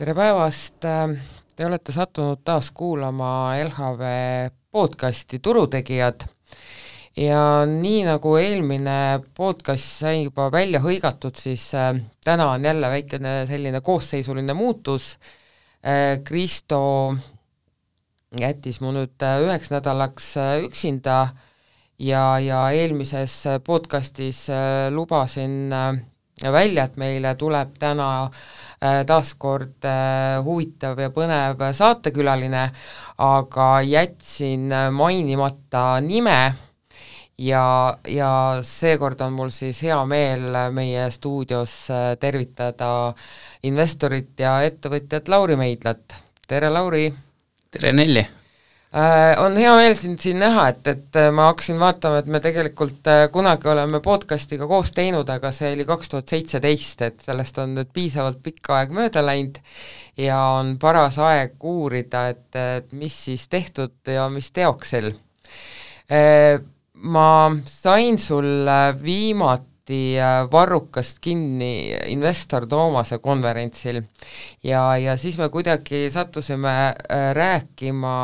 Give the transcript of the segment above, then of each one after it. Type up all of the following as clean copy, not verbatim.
Tere päevast! Te olete sattunud taas kuulama LHV podcasti Turutegijad ja nii nagu eelmine podcast sai juba välja hõigatud, siis täna on jälle väikene selline koosseisuline muutus. Kristo jättis mu nüüd 1 nädalaks üksinda ja eelmises podcastis lubasin välja, et meile tuleb täna taaskord huvitav ja põnev saatekülaline, aga jätsin mainimata nime ja seekord on mul siis hea meel meie stuudios tervitada investorit ja ettevõtjat Lauri Meidlat. Tere, Lauri! Tere, Nelli! On hea meel siin näha, et ma hakkasin vaatama, et me tegelikult kunagi oleme podcastiga koos teinud, aga see oli 2017, et sellest on nüüd piisavalt pikka aeg mööda läinud ja on paras aeg uurida, et mis siis tehtud ja mis teoksel. Ma sain sul viimati Varrukast kinni investor Toomase konverentsil ja siis me kuidagi sattusime rääkima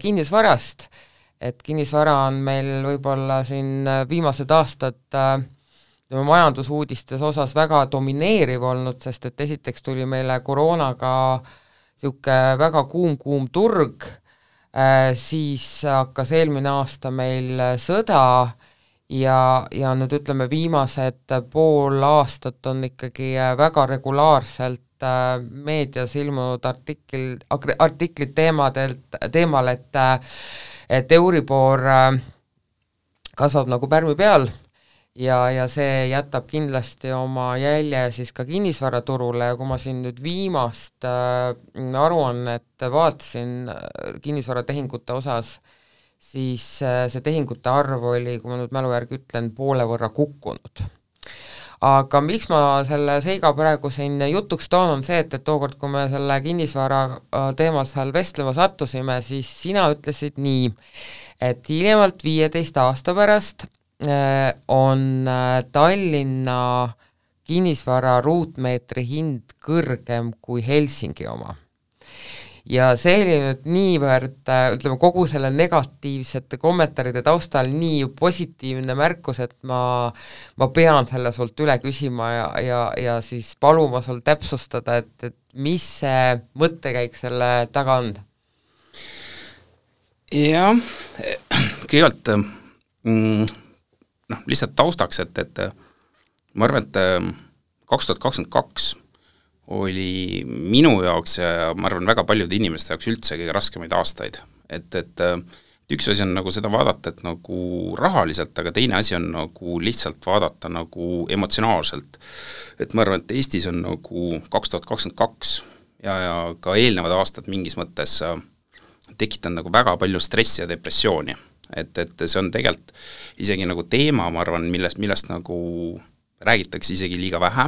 kinnisvarast, et kinnisvara on meil võib-olla siin viimased aastad majandusuudistes osas väga domineeriv olnud, sest et esiteks tuli meile koroonaga siuke väga kuum turg, siis hakkas eelmine aasta meil sõda ja nüüd ütleme viimased pool aastat on ikkagi väga regulaarselt meedias ilmunud artiklid teemal, et Euribor kasvab nagu pärmi peal ja see jätab kindlasti oma jälje siis ka kinnisvaraturule ja kui ma siin nüüd viimast aruannet vaatasin kinnisvaratehingute osas, siis see tehingute arv oli, kui ma nüüd mälu järgi ütlen, poole võrra kukkunud. Aga miks ma selle seiga praegu siin jutuks toon, on see, et tookord, kui me selle kinnisvara teemal seal vestlema sattusime, siis sina ütlesid nii, et hiljemalt 15 aasta pärast on Tallinna kinnisvara ruutmeetri hind kõrgem kui Helsingi oma. Ja see oli nüüd niivõrd, ütleme, kogu selle negatiivsete kommentaaride taustal nii positiivne märkus, et ma pean selle sult üle küsima ja siis paluma sul täpsustada, et mis see mõttekäik selle taga on? Jah, kõigepealt lihtsalt taustaks, et ma arvan, et 2022 oli minu jaoks ja ma arvan väga paljude inimeste jaoks üldse kõige raskemaid aastaid. Et üks asi on nagu seda vaadata, et nagu rahaliselt, aga teine asi on nagu lihtsalt vaadata nagu emotsionaalselt. Et ma arvan, et Eestis on nagu 2022 ja ka eelnevad aastad mingis mõttes tekitanud nagu väga palju stressi ja depressiooni. Et see on tegelikult isegi nagu teema, ma arvan, millest nagu räägitakse isegi liiga vähe.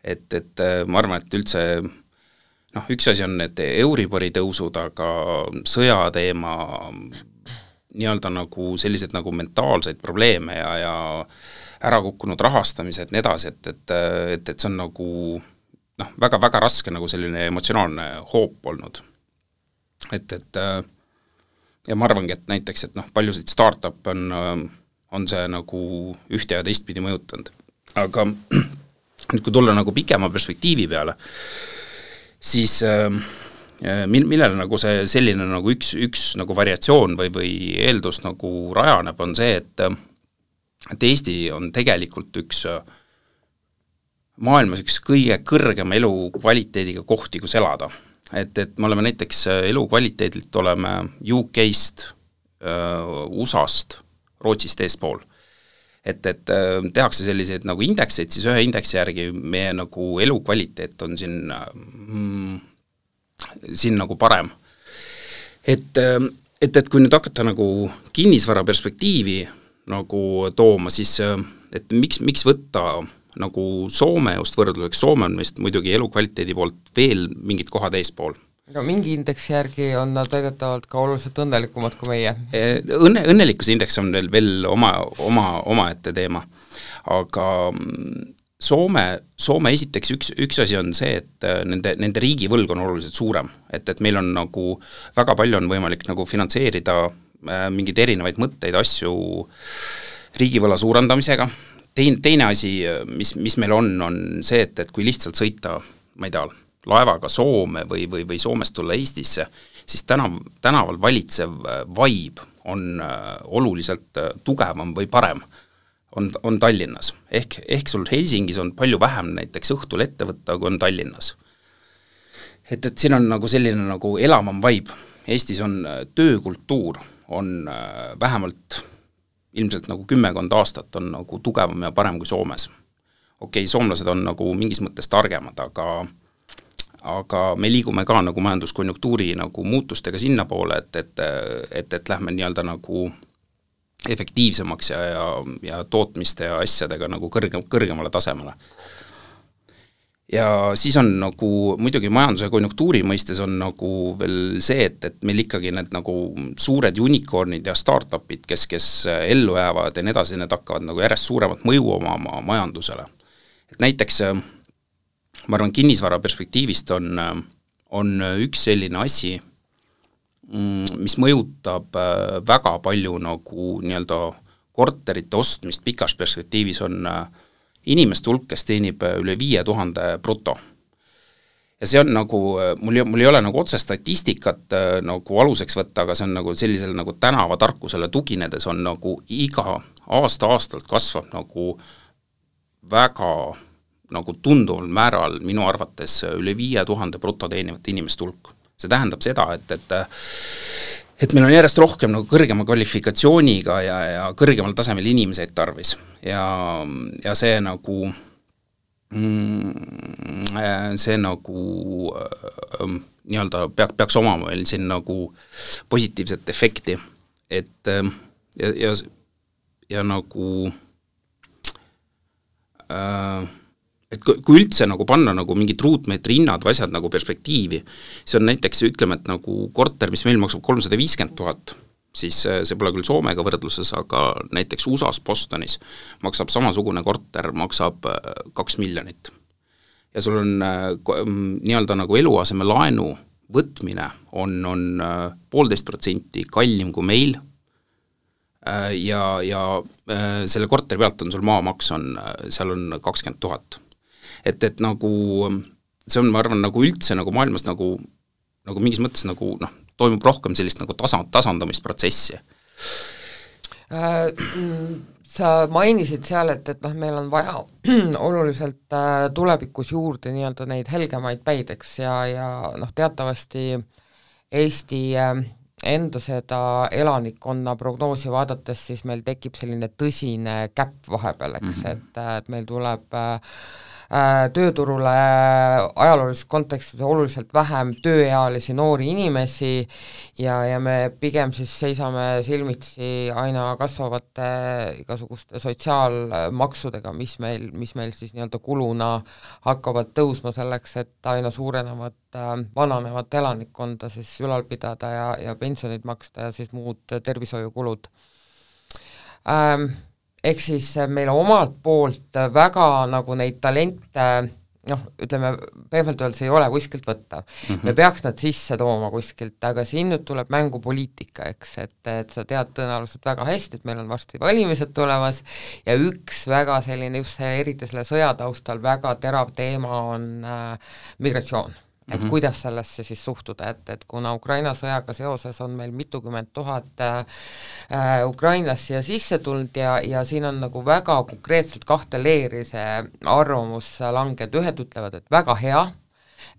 Et ma arvan, et üldse üks asi on need Euribori tõusud, aga sõjateema, nii-öelda nagu sellised nagu mentaalseid probleeme ja ära kukkunud rahastamised nii edasi, et see on nagu väga raske nagu selline emotsionaalne hoop olnud. Ja ma arvangi, et näiteks, et paljusid startup on see nagu ühte ja teistpidi mõjutanud. Aga nüüd kui tulla nagu pikema perspektiivi peale, siis millele nagu see selline nagu üks nagu variatsioon või eeldus nagu rajaneb, on see, et Eesti on tegelikult üks maailmas üks kõige kõrgema elukvaliteediga kohti, kus elada. Et me oleme näiteks elukvaliteedilt oleme UK-st, USA-st, Rootsist eespool. Et tehakse selliseid nagu indekseid, siis ühe indeksi järgi meie nagu elukvaliteet on siin nagu parem. Et kui nüüd hakata nagu kinnisvara perspektiivi nagu tooma, siis et miks võtta nagu Soome just võrdluseks, Soome on vist muidugi elukvaliteedi poolt veel mingid kohad eespool. No mingi indeksi järgi on nad tegelikult ka oluliselt õnnelikumad kui meie. Õnnelikkuse indeks on veel oma ette teema, aga Soome esiteks üks asi on see, et nende riigivõlg on oluliselt suurem, et meil on nagu väga palju on võimalik nagu finantseerida mingeid erinevaid mõtteid, asju riigivõla suurendamisega. Teine asi, mis meil on see, et kui lihtsalt sõita, ma ei tea, laevaga Soome või Soomest tulla Eestisse, siis tänaval valitsev vibe on oluliselt tugevam või parem on Tallinnas. Ehk sul Helsingis on palju vähem näiteks õhtul ette võtta, kui on Tallinnas. Et siin on nagu selline nagu elavam vibe. Eestis on töökultuur, on vähemalt ilmselt nagu 10 aastat on nagu tugevam ja parem kui Soomes. Okei, soomlased on nagu mingis mõttes targemad, aga me liigume ka nagu majanduskonjunktuuri nagu muutustega sinna poole, et lähme nii-öelda nagu efektiivsemaks ja tootmiste ja asjadega nagu kõrgemale tasemele. Ja siis on nagu muidugi majanduse konjunktuuri mõistes on nagu veel see, et meil ikkagi need nagu suured unicornid ja startupid, kes ellu jäävad ja nii edasi, need hakkavad nagu järjest suuremat mõju oma majandusele. Et näiteks ma arvan, kinnisvara perspektiivist on üks selline asi, mis mõjutab väga palju nagu nii-öelda korterite ostmist pikas perspektiivis on inimeste hulk, kes teenib üle 5000 bruto. Ja see on nagu, mul ei ole nagu otse statistikat nagu aluseks võtta, aga see on nagu sellisel nagu tänavatarkusele tuginedes on nagu iga aastalt kasvab nagu väga nagu tunduval määral minu arvates üle 5000 bruto teenivat inimeste hulk. See tähendab seda, et meil on järjest rohkem nagu kõrgema kvalifikatsiooniga ja kõrgemal tasemel inimeseid tarvis. Ja see nagu nii-öelda peaks omama meil siin nagu positiivset efekti, et ja nagu et kui üldse nagu panna nagu mingid ruutmeetri hinnad või asjad nagu perspektiivi, see on näiteks, ütleme, et nagu korter, mis meil maksab 350 000, siis see pole küll Soomega võrdluses, aga näiteks USAs Bostonis maksab samasugune korter, maksab 2 miljonit. Ja sul on nii-öelda nagu eluaseme laenu võtmine on 1,5% kallim kui meil, ja selle korteri pealt on sul maamaks seal on 20 000. Et nagu see on, ma arvan, nagu üldse nagu maailmas nagu mingis mõttes nagu toimub rohkem sellist nagu tasandamisprotsessi. Sa mainisid seal, et meil on vaja oluliselt tulevikus juurde nii-öelda neid helgemaid päideks ja teatavasti Eesti enda seda elanikkonna prognoosi vaadates, siis meil tekib selline tõsine käpp vahepeal, eks, et meil tuleb tööturule ajaloolises kontekstis oluliselt vähem tööealisi noori inimesi ja me pigem siis seisame silmitsi aina kasvavate igasuguste sotsiaalmaksudega, mis meil siis nii-öelda kuluna hakkavad tõusma selleks, et aina suurenevat vananevat elanikkonda siis ülal pidada ja pensionid maksta ja siis muud tervishoiukulud. Ehk siis meil omalt poolt väga nagu neid talente, ütleme, pehmelt öeldes ei ole kuskilt võtta. Me peaks nad sisse tooma kuskilt, aga siin nüüd tuleb mängu poliitika, eks, et sa tead tõenäoliselt väga hästi, et meil on varsti valimised tulemas ja üks väga selline, just eriti selle sõjataustal väga terav teema on migratsioon. Et kuidas sellesse siis suhtuda, et kuna Ukraina sõjaga seoses on meil mitukümmend tuhat ukrainlast siia sisse tulnud ja siin on nagu väga konkreetselt kahte leeri see arvamus langed, ühed ütlevad, et väga hea,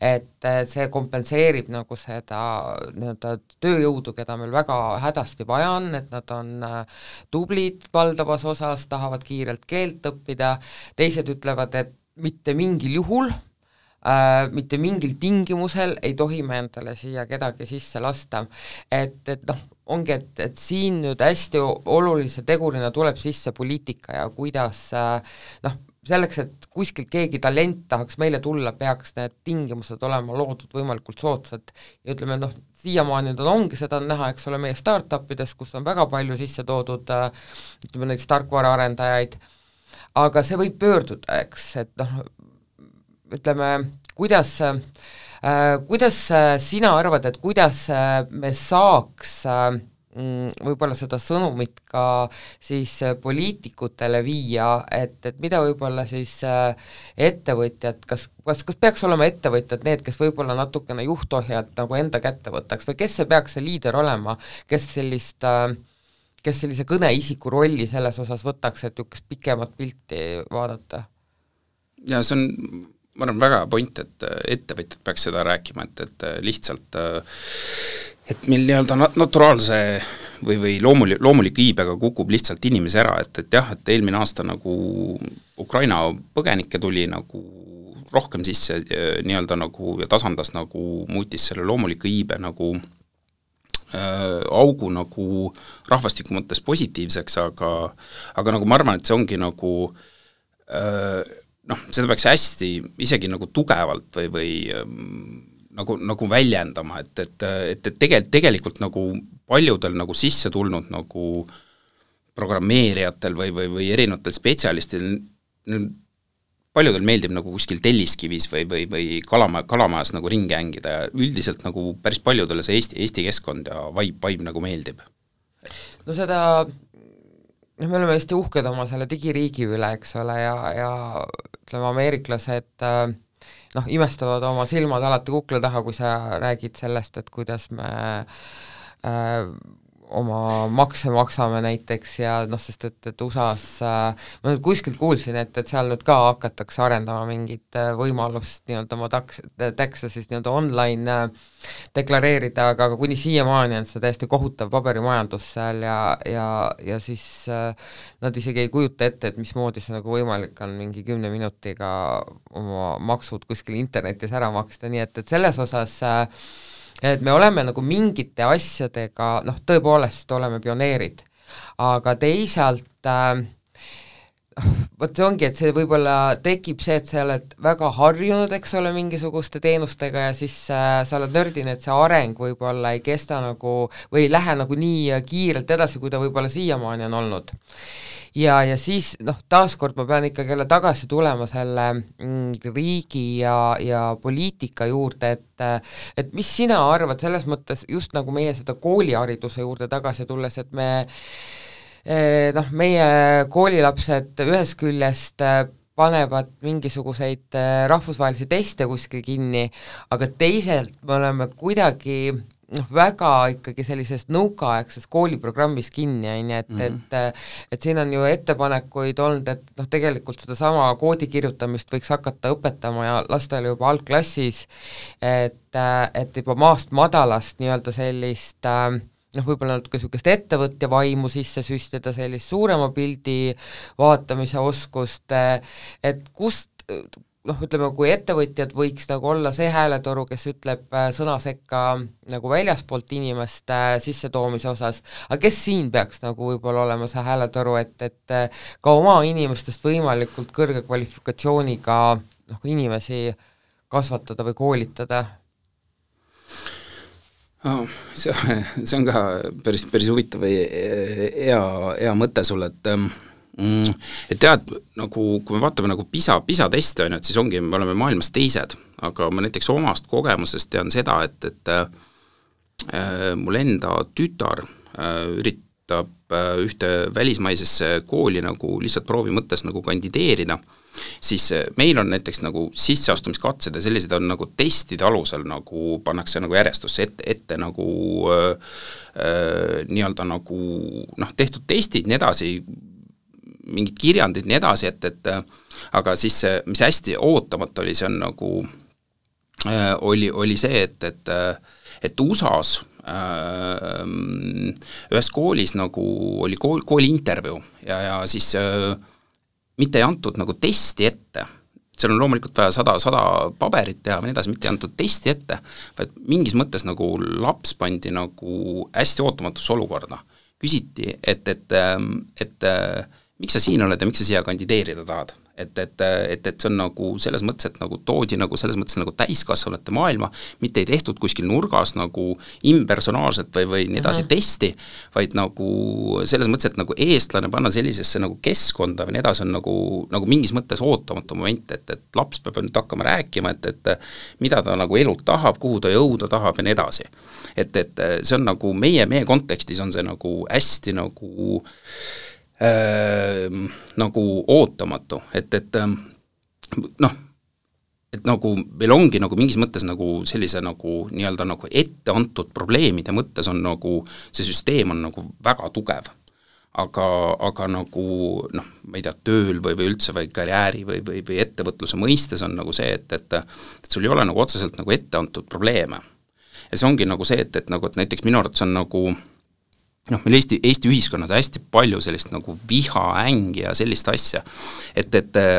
et see kompenseerib nagu seda tööjõudu, keda meil väga hädasti vaja on, et nad on tublid valdavas osas, tahavad kiirelt keelt õppida, teised ütlevad, et mitte mingil juhul, mitte mingil tingimusel ei tohi me endale siia kedagi sisse lasta. Et ongi, et siin nüüd hästi olulise tegurina tuleb sisse poliitika ja kuidas selleks, et kuskilt keegi talent tahaks meile tulla, peaks need tingimused olema loodud võimalikult soodsad ja ütleme, siiamaani ongi seda näha, eks ole, meie startupides, kus on väga palju sisse toodud ütleme neid tarkvaraarendajaid aga see võib pöörduda, eks, et noh, ütleme, kuidas sina arvad, et kuidas me saaks võib-olla seda sõnumit ka siis poliitikutele viia, et mida võib-olla siis ettevõtjad, kas peaks olema ettevõtjad need, kes võib-olla natukene juhtohjad nagu enda kätte võtaks või kes see peaks see liider olema, kes sellise kõneisiku rolli selles osas võtaks, et niisugust pikemat pilti vaadata? Ja see on, ma arvan, väga point, et ettevõtjad peaks seda rääkima, et lihtsalt et meil nii-öelda naturaalse või loomulik iibega kukub lihtsalt inimesi ära, et jah, et eelmine aasta nagu Ukraina põgenikke tuli nagu rohkem sisse nii-öelda nagu ja tasandas nagu, muutis selle loomuliku iibe nagu augu nagu rahvastiku mõttes positiivseks, aga nagu ma arvan, et see ongi nagu seda peaks hästi isegi nagu tugevalt või nagu väljendama, et tegelikult nagu paljudel nagu sisse tulnud nagu programmeerijatel või erinevatel spetsialistil, paljudel meeldib nagu kuskil Telliskivis või kalamajas nagu ringi hängida ja üldiselt nagu päris paljudele see Eesti keskkond ja vibe nagu meeldib. No seda, me oleme hästi uhked oma selle digiriigi üle, eks ole, ja ütleme, ameeriklased imestavad oma silmad alati kukla taha, kui sa räägid sellest, et kuidas me oma makse maksame näiteks ja sest et USA-s ma nüüd kuskilt kuulsin, et seal nüüd ka hakatakse arendama mingit võimalust nii-öelda oma taxe siis nii-öelda online deklareerida, aga kuni siiamaani on see täiesti kohutav paberimajandus seal ja siis nad isegi ei kujuta ette, et mismoodi see nagu võimalik on mingi 10 minutiga oma maksud kuskil internetis ära maksta, nii et selles osas et me oleme nagu mingite asjadega, tõepoolest oleme pioneerid, aga teisalt vot see ongi, et see võib-olla tekib see, et sa oled väga harjunud, eks ole, mingisuguste teenustega ja siis sa oled nördine, et see areng võib-olla ei kesta nagu või ei lähe nagu nii kiirelt edasi, kui ta võib-olla siiamaani on olnud. Ja siis taaskord ma pean ikkagi jälle tagasi tulema selle riigi ja poliitika juurde, et mis sina arvad selles mõttes just nagu meie seda koolihariduse juurde tagasi tulles, et meie koolilapsed ühest küljest panevad mingisuguseid rahvusvahelisi teste kuskil kinni, aga teisalt me oleme kuidagi väga ikkagi sellisest nõukaaegses kooliprogrammis kinni, et siin on ju ettepanekuid olnud, et tegelikult seda sama koodi kirjutamist võiks hakata õpetama ja lastele juba algklassis, et juba maast madalast nii-öelda sellist võib-olla natuke niisugust ettevõtja vaimu sisse süstida, sellist suurema pildi vaatamise oskust, et kust ütleme, kui ettevõtjad võiks nagu olla see hääletoru, kes ütleb sõna sekka nagu väljaspoolt inimeste sissetoomise osas, aga kes siin peaks nagu võib-olla olema see hääletoru, et ka oma inimestest võimalikult kõrge kvalifikatsiooniga inimesi kasvatada või koolitada? See on ka päris huvitav hea mõte sulle, et tead, nagu kui me vaatame nagu PISA teste, et siis ongi, me oleme maailmas teised, aga ma näiteks omast kogemusest tean seda, et mul enda tütar üritab ühte välismaisesse kooli nagu lihtsalt proovi mõttes nagu kandideerida, siis meil on näiteks nagu sisseastumiskatsed ja sellised on nagu testide alusel nagu pannakse nagu järjestusse ette nagu nii-öelda nagu tehtud testid, nii edasi, mingid kirjandid, nii edasi, et aga siis mis hästi ootamata oli, see on nagu oli see, et USA-s ühes koolis nagu oli kooli intervjuu ja siis mitte ei antud nagu testi ette, seal on loomulikult vaja 100 paberit teha või nii edasi, mitte ei antud testi ette, vaid mingis mõttes nagu laps pandi nagu hästi ootamatusse olukorda. Küsiti, et miks sa siin oled ja miks sa siia kandideerida tahad? et see on nagu selles mõttes, et nagu toodi nagu selles mõttes nagu täiskasvanute maailma, mitte ei tehtud kuskil nurgas nagu impersonaalselt või nii edasi testi, vaid nagu selles mõttes, et nagu eestlane panna sellisesse nagu keskkonda või nii edasi on nagu mingis mõttes ootamatu moment, et laps peab nüüd hakkama rääkima, et mida ta nagu elult tahab, kuhu ta jõuda tahab ja nii edasi. Et see on nagu meie kontekstis on see nagu hästi nagu ootamatu, et nagu meil ongi nagu mingis mõttes nagu sellise nagu nii-öelda nagu ette antud probleemide mõttes on nagu see süsteem on nagu väga tugev. Aga nagu ma ei tea, tööl või üldse või karjääri või ettevõtluse mõistes on nagu see, et sul ei ole nagu otseselt nagu ette antud probleeme. Ja see ongi nagu see, et näiteks minu arvates on nagu meil Eesti ühiskonnas hästi palju sellist nagu viha, ängi ja sellist asja,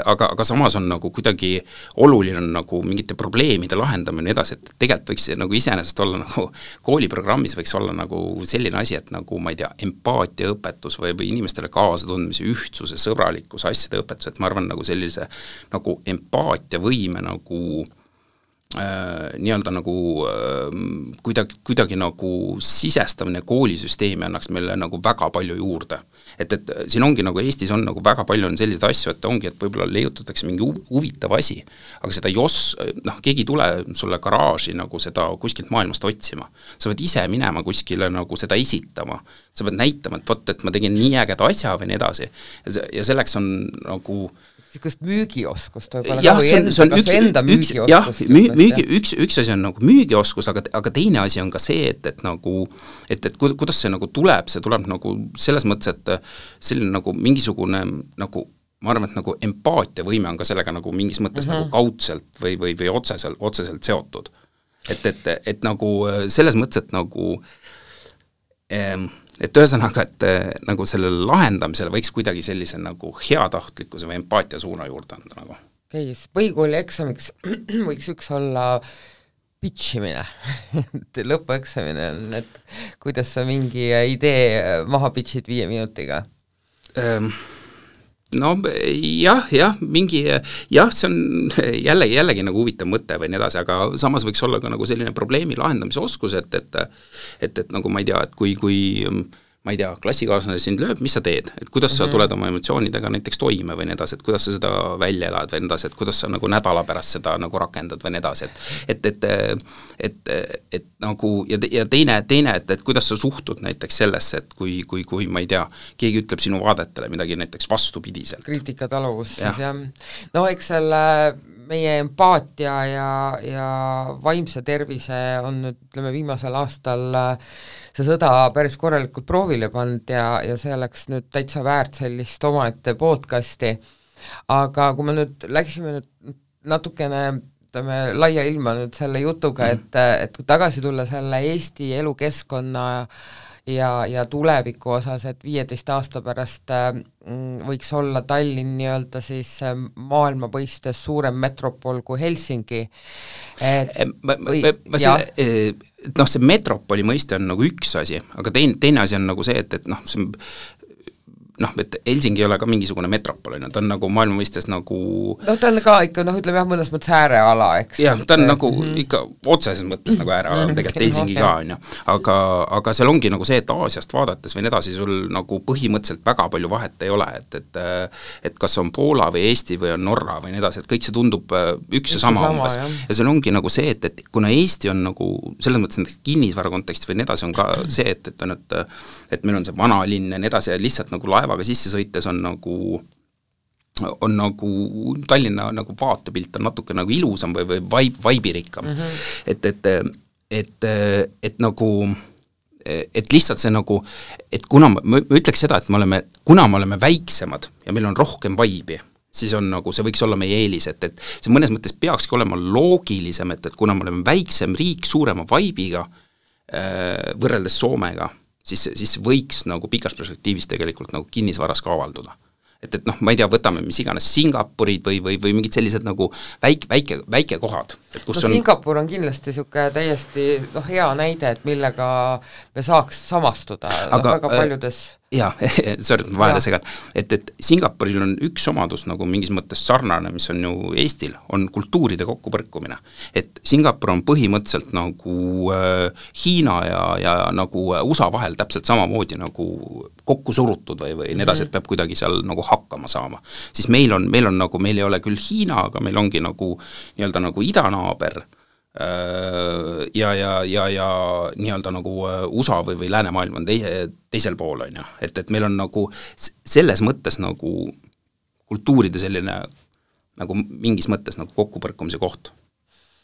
aga samas on nagu kuidagi oluline nagu mingite probleemide lahendamine edasi, et tegelikult võiks nagu iseenesest olla nagu kooliprogrammis võiks olla nagu selline asi, et nagu ma ei tea, empaatiaõpetus või inimestele kaasatundmise ühtsuse, sõbralikkuse asjade õpetus, et ma arvan nagu sellise nagu empaatiavõime nagu nii-öelda nagu kuidagi nagu sisestamine koolisüsteemi annaks meile nagu väga palju juurde. Et siin ongi nagu Eestis on nagu väga palju on selliseid asju, et ongi, et võib-olla leiutatakse mingi huvitav asi, aga seda keegi ei tule sulle garaaži nagu seda kuskilt maailmast otsima. Sa pead ise minema kuskile nagu seda esitama. Sa pead näitama, et ma tegin nii ägeda asja või nii edasi. Ja selleks on nagu niisugust müügioskust võib-olla enda müügioskust. Üks asi on nagu müügioskus, aga teine asi on ka see, et kuidas see nagu tuleb nagu selles mõttes, et selline nagu mingisugune nagu ma arvan, et nagu empaatiavõime on ka sellega nagu mingis mõttes nagu kaudselt või otseselt seotud. Et nagu selles mõttes, et nagu et ühesõnaga, et nagu sellele lahendamisele võiks kuidagi sellise nagu heatahtlikkuse või empaatia suuna juurde anda nagu. Okei, põhikooli eksamiks võiks üks olla pitchimine lõpueksamine on, et kuidas sa mingi idee maha pitchid 5 minutiga? No mingi, see on jällegi nagu huvitav mõte või nii edasi, aga samas võiks olla ka nagu selline probleemi lahendamise oskus, et nagu ma ei tea, et kui ma ei tea, klassikaaslane sind lööb, mis sa teed, et kuidas sa tuled oma emotsioonidega näiteks toime või nii edasi, et kuidas sa seda välja elad või nii edasi, et kuidas sa nagu nädala pärast seda nagu rakendad või nii edasi, et nagu ja teine, et kuidas sa suhtud näiteks sellesse, et kui ma ei tea, keegi ütleb sinu vaadetele midagi näiteks vastupidiselt. Kriitikataluvus siis jah. No eks selle meie empaatia ja vaimse tervise on nüüd, ütleme, viimasel aastal see sõda päris korralikult proovile pannud ja see oleks nüüd täitsa väärt sellist omaette podcasti. Aga kui me nüüd läksime nüüd natukene laia ilma nüüd selle jutuga, et tagasi tulla selle Eesti elukeskkonna ja tuleviku osas, et 15 aasta pärast võiks olla Tallinn nii-öelda siis maailma põistes suurem metropol kui Helsingi. See metropoli mõiste on nagu üks asi, aga teine asi on nagu see, et Helsingi ei ole ka mingisugune metropol, ta on nagu maailma mõistes nagu ta on ka ikka, ütleme jah, mõnes mõttes ääreala, eks. Jah, ta on nagu ikka otseses mõttes nagu ääreala, tegelikult Helsingi ka on ju, aga seal ongi nagu see, et Aasiast vaadates või nii edasi, sul nagu põhimõtteliselt väga palju vahet ei ole, et kas on Poola või Eesti või on Norra või nii edasi, et kõik see tundub üks ja sama umbes. Ja seal ongi nagu see, et kuna Eesti on nagu selles mõttes kinnisvara kontekstis või nii edasi on ka see, et meil on see vanalinn ja nii edasi ja lihtsalt nagu laevaga sisse sõites on nagu Tallinna nagu vaatepilt on natuke nagu ilusam või vaibirikkam. Et nagu et lihtsalt see nagu, et kuna ma ütleks seda, et kuna me oleme väiksemad ja meil on rohkem vaibi, siis on nagu, see võiks olla meie eelis, et see mõnes mõttes peakski olema loogilisem, et kuna me oleme väiksem riik suurema vaibiga võrreldes Soomega, siis võiks nagu pikas perspektiivis tegelikult nagu kinnisvaras ka avalduda. Et ma ei tea, võtame mis iganes Singapurid või mingid sellised nagu väike kohad. Singapur on kindlasti niisugune täiesti hea näide, et millega me saaks samastuda väga paljudes jaa, sorry, ma vahele segan, et Singapuril on üks omadus nagu mingis mõttes sarnane, mis on ju Eestil, on kultuuride kokkupõrkumine. Et Singapur on põhimõtteliselt nagu Hiina ja nagu USA vahel täpselt samamoodi nagu kokku surutud või nii edasi, et peab kuidagi seal nagu hakkama saama. Siis meil on nagu, meil ei ole küll Hiina, aga meil ongi nagu nii-öelda nagu idanaaber, ja nii-öelda nagu USA või läänemaailm on teisel pool, on ju. Et meil on nagu selles mõttes nagu kultuuride selline nagu mingis mõttes nagu kokkupõrkumise koht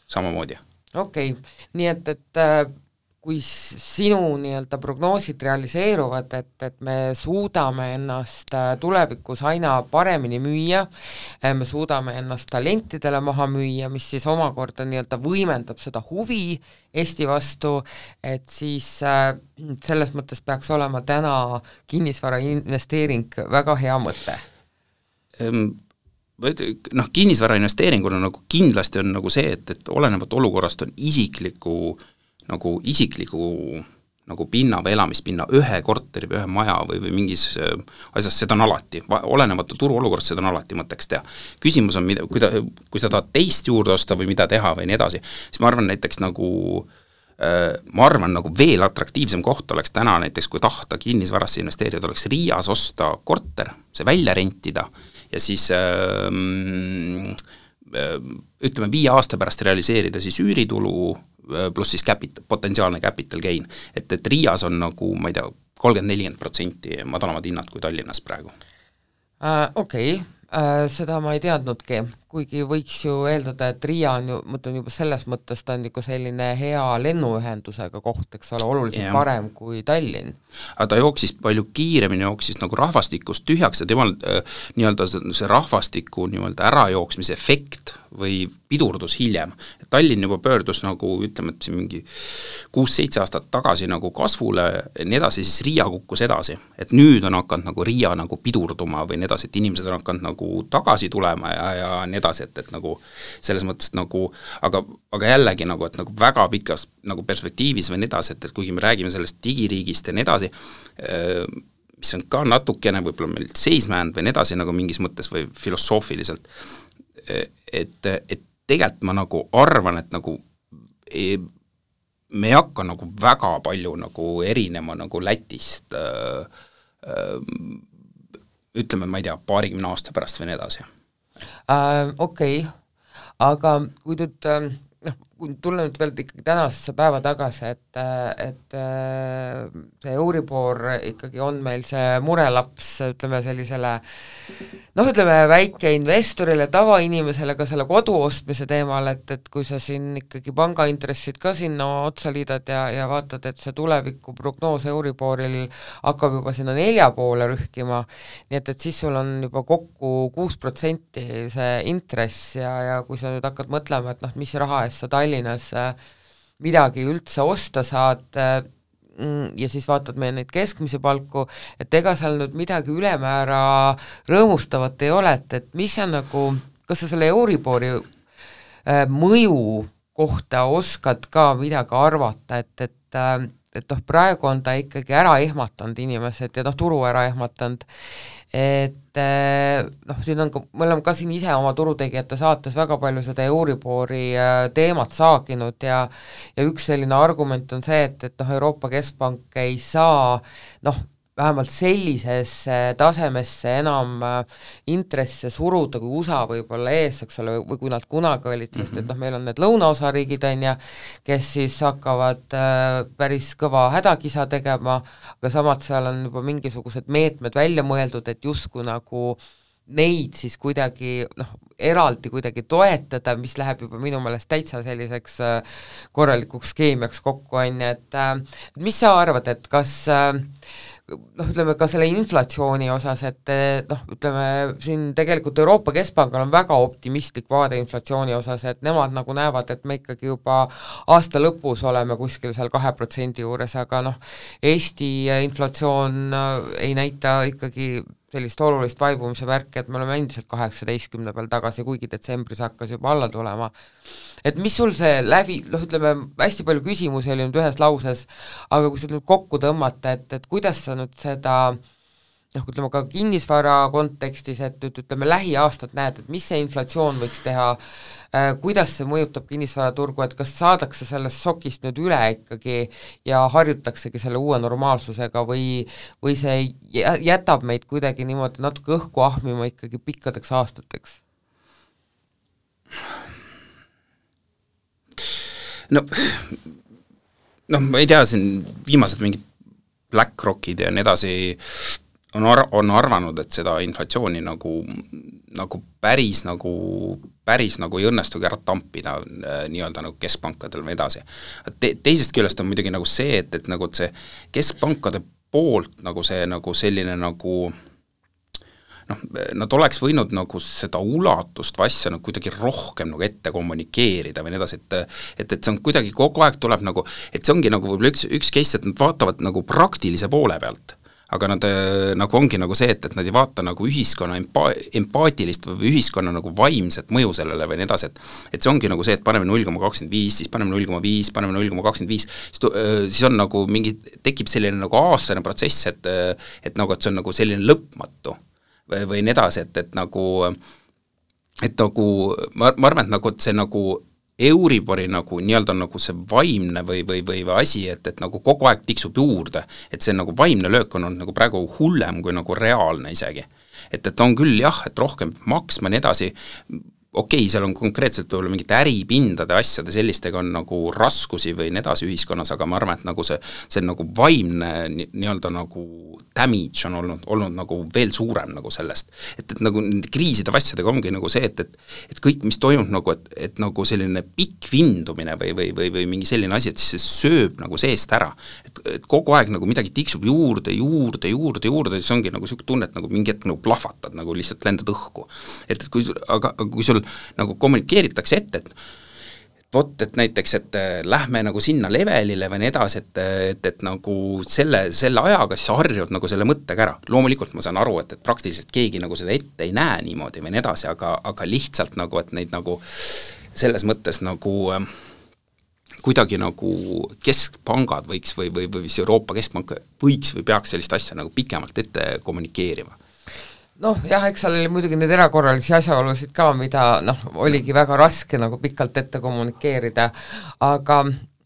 samamoodi. Okei, nii et kui sinu nii-öelda prognoosid realiseeruvad, et me suudame ennast tulevikus aina paremini müüa, me suudame ennast talentidele maha müüa, mis siis omakorda nii-öelda võimendab seda huvi Eesti vastu, et siis selles mõttes peaks olema täna kinnisvara investeering väga hea mõte. Kinnisvara investeeringuna nagu kindlasti on nagu see, et olenevat olukorrast on isikliku pinna või elamispinna ühe korteri või ühe maja või mingis asjas, seda on alati, olenevalt turuolukorrast seda on alati mõtteks teha. Küsimus on, kui sa tahad teist juurde osta või mida teha või nii edasi, siis ma arvan näiteks nagu veel atraktiivsem koht oleks täna näiteks, kui tahta kinnisvarasse investeerida, oleks Riias osta korter, see välja rentida ja siis ütleme 5 aasta pärast realiseerida siis üüritulu pluss siis potentsiaalne capital gain. Et Riias on nagu, ma ei tea, 30-40% madalamad hinnad kui Tallinnas praegu. Okei, seda ma ei teadnudki, kuigi võiks ju eeldada, et Riia on ju, mõtlen juba selles mõttes, ta on nagu selline hea lennuühendusega koht, eks ole, oluliselt parem kui Tallinn. Aga ta jooksis palju kiiremini, jooksis nagu rahvastikust tühjaks ja temal nii-öelda see rahvastiku nii-öelda ärajooksmise efekt või pidurdus hiljem. Tallinn juba pöördus nagu, ütleme, et mingi 6-7 aastat tagasi nagu kasvule, nii edasi, siis Riia kukkus edasi. Et nüüd on hakanud nagu Riia nagu pidurduma või nii edasi, et inimesed on hakanud nagu tagasi tulema ja nii edasi, et nagu selles mõttes nagu, aga jällegi nagu, et nagu väga pikas nagu perspektiivis või nii edasi, et kuigi me räägime sellest digiriigist ja nii edasi, mis on ka natukene võib-olla meil seismänd või nii edasi nagu mingis mõttes või filosoofiliselt, et tegelikult ma nagu arvan, et nagu me ei hakka nagu väga palju nagu erinema nagu Lätist ütleme, ma ei tea, 20 aasta pärast või nii edasi. Okei, aga kui nüüd kui tulla nüüd veel ikkagi tänasesse päeva tagasi, et see Euribor ikkagi on meil see murelaps, ütleme sellisele ütleme väikeinvestorile, tavainimesele ka selle kodu ostmise teemal, et kui sa siin ikkagi pangaintressid ka sinna otsa liidad ja vaatad, et see tuleviku prognoos Euriboril hakkab juba sinna 4 poole rühkima, nii et siis sul on juba kokku 6% see intress ja kui sa nüüd hakkad mõtlema, et mis raha eest sa Tallinnas midagi üldse osta saad ja siis vaatad meie neid keskmise palku, et ega seal nüüd midagi ülemäära rõõmustavat ei ole, et mis on nagu, kas sa selle Euribori mõju kohta oskad ka midagi arvata, et praegu on ta ikkagi ära ehmatanud inimesed ja turu ära ehmatanud, et siin on ka, me oleme ka siin ise oma turutegijate saates väga palju seda Euribori teemat saaginud ja üks selline argument on see, et Euroopa Keskpank ei saa vähemalt sellisesse tasemesse enam intresse suruda, kui USA võib-olla ees, eks ole, või kui nad kunagi olid, sest et meil on need lõunaosariigid, kes siis hakkavad päris kõva hädakisa tegema, aga samad seal on juba mingisugused meetmed välja mõeldud, et justkui nagu neid siis kuidagi eraldi kuidagi toetada, mis läheb juba minu meelest täitsa selliseks korralikuks keemiaks kokku, et mis sa arvad, et kas ütleme ka selle inflatsiooni osas, et ütleme siin tegelikult Euroopa Keskpangal on väga optimistlik vaade inflatsiooni osas, et nemad nagu näevad, et me ikkagi juba aasta lõpus oleme kuskil seal 2% juures, aga Eesti inflatsioon ei näita ikkagi sellist olulist vaibumise märki, et me oleme endiselt 18 peal tagasi, kuigi detsembris hakkas juba alla tulema. Et mis sul see ütleme, hästi palju küsimusi oli nüüd ühes lauses, aga kui sa nüüd kokku tõmmata, et kuidas sa nüüd seda ütleme ka kinnisvara kontekstis, et ütleme lähiaastad näed, et mis see inflatsioon võiks teha, kuidas see mõjutab kinnisvaraturgu, et kas saadakse sellest šokist nüüd üle ikkagi ja harjutaksegi selle uue normaalsusega või see jätab meid kuidagi niimoodi natuke õhku ahmima ikkagi pikkadeks aastateks? Ma ei tea, siin viimased mingid BlackRockid ja nii edasi on arvanud, et seda inflatsiooni nagu päris ei õnnestugi ära tampida nii-öelda nagu keskpankadel või edasi. Teisest küljest on muidugi nagu see, et nagu see keskpankade poolt nagu see nagu selline nagu nad oleks võinud nagu seda ulatust või asja nagu kuidagi rohkem nagu ette kommunikeerida või nii edasi, et see on kuidagi kogu aeg tuleb nagu, et see ongi nagu võib-olla üks case, et nad vaatavad nagu praktilise poole pealt, aga nad nagu ongi nagu see, et nad ei vaata nagu ühiskonna empaatilist või ühiskonna nagu vaimset mõju sellele või nii edasi, et see ongi nagu see, et paneme 0,25, siis paneme 0,5, paneme 0,25, siis on nagu mingi, tekib selline nagu aastane protsess, et nagu, et see on nagu selline lõpmatu või nii edasi, et nagu ma arvan, et nagu, et see nagu Euribori nagu nii-öelda nagu see vaimne või asi, et nagu kogu aeg tiksub juurde, et see nagu vaimne löök on olnud nagu praegu hullem kui nagu reaalne isegi. Et on küll jah, et rohkem maksma nii edasi, okei, seal on konkreetselt võib-olla mingite äripindade asjade sellistega on nagu raskusi või nii edasi ühiskonnas, aga ma arvan, et nagu see nagu vaimne nii-öelda nagu damage on olnud nagu veel suurem nagu sellest. Et nagu kriiside asjadega ongi nagu see, et kõik, mis toimub nagu, et nagu selline pikk vindumine või mingi selline asi, et siis see sööb nagu seest ära. Et kogu aeg nagu midagi tiksub juurde, siis ongi nagu selline tunne, et nagu mingi hetk nagu plahvatad, nagu lihtsalt lendad õhku. Et kui sul nagu kommunikeeritakse ette, et näiteks, et lähme nagu sinna levelile või nii edasi, et nagu selle ajaga siis harjud nagu selle mõttega ära. Loomulikult ma saan aru, et praktiliselt keegi nagu seda ette ei näe niimoodi või nii edasi, aga lihtsalt nagu, et neid nagu selles mõttes nagu kuidagi nagu keskpangad võiks või Euroopa Keskpank võiks või peaks sellist asja nagu pikemalt ette kommunikeerima. Jah, eks seal oli muidugi neid erakorralisi asjaolusid ka, mida oligi väga raske nagu pikalt ette kommunikeerida, aga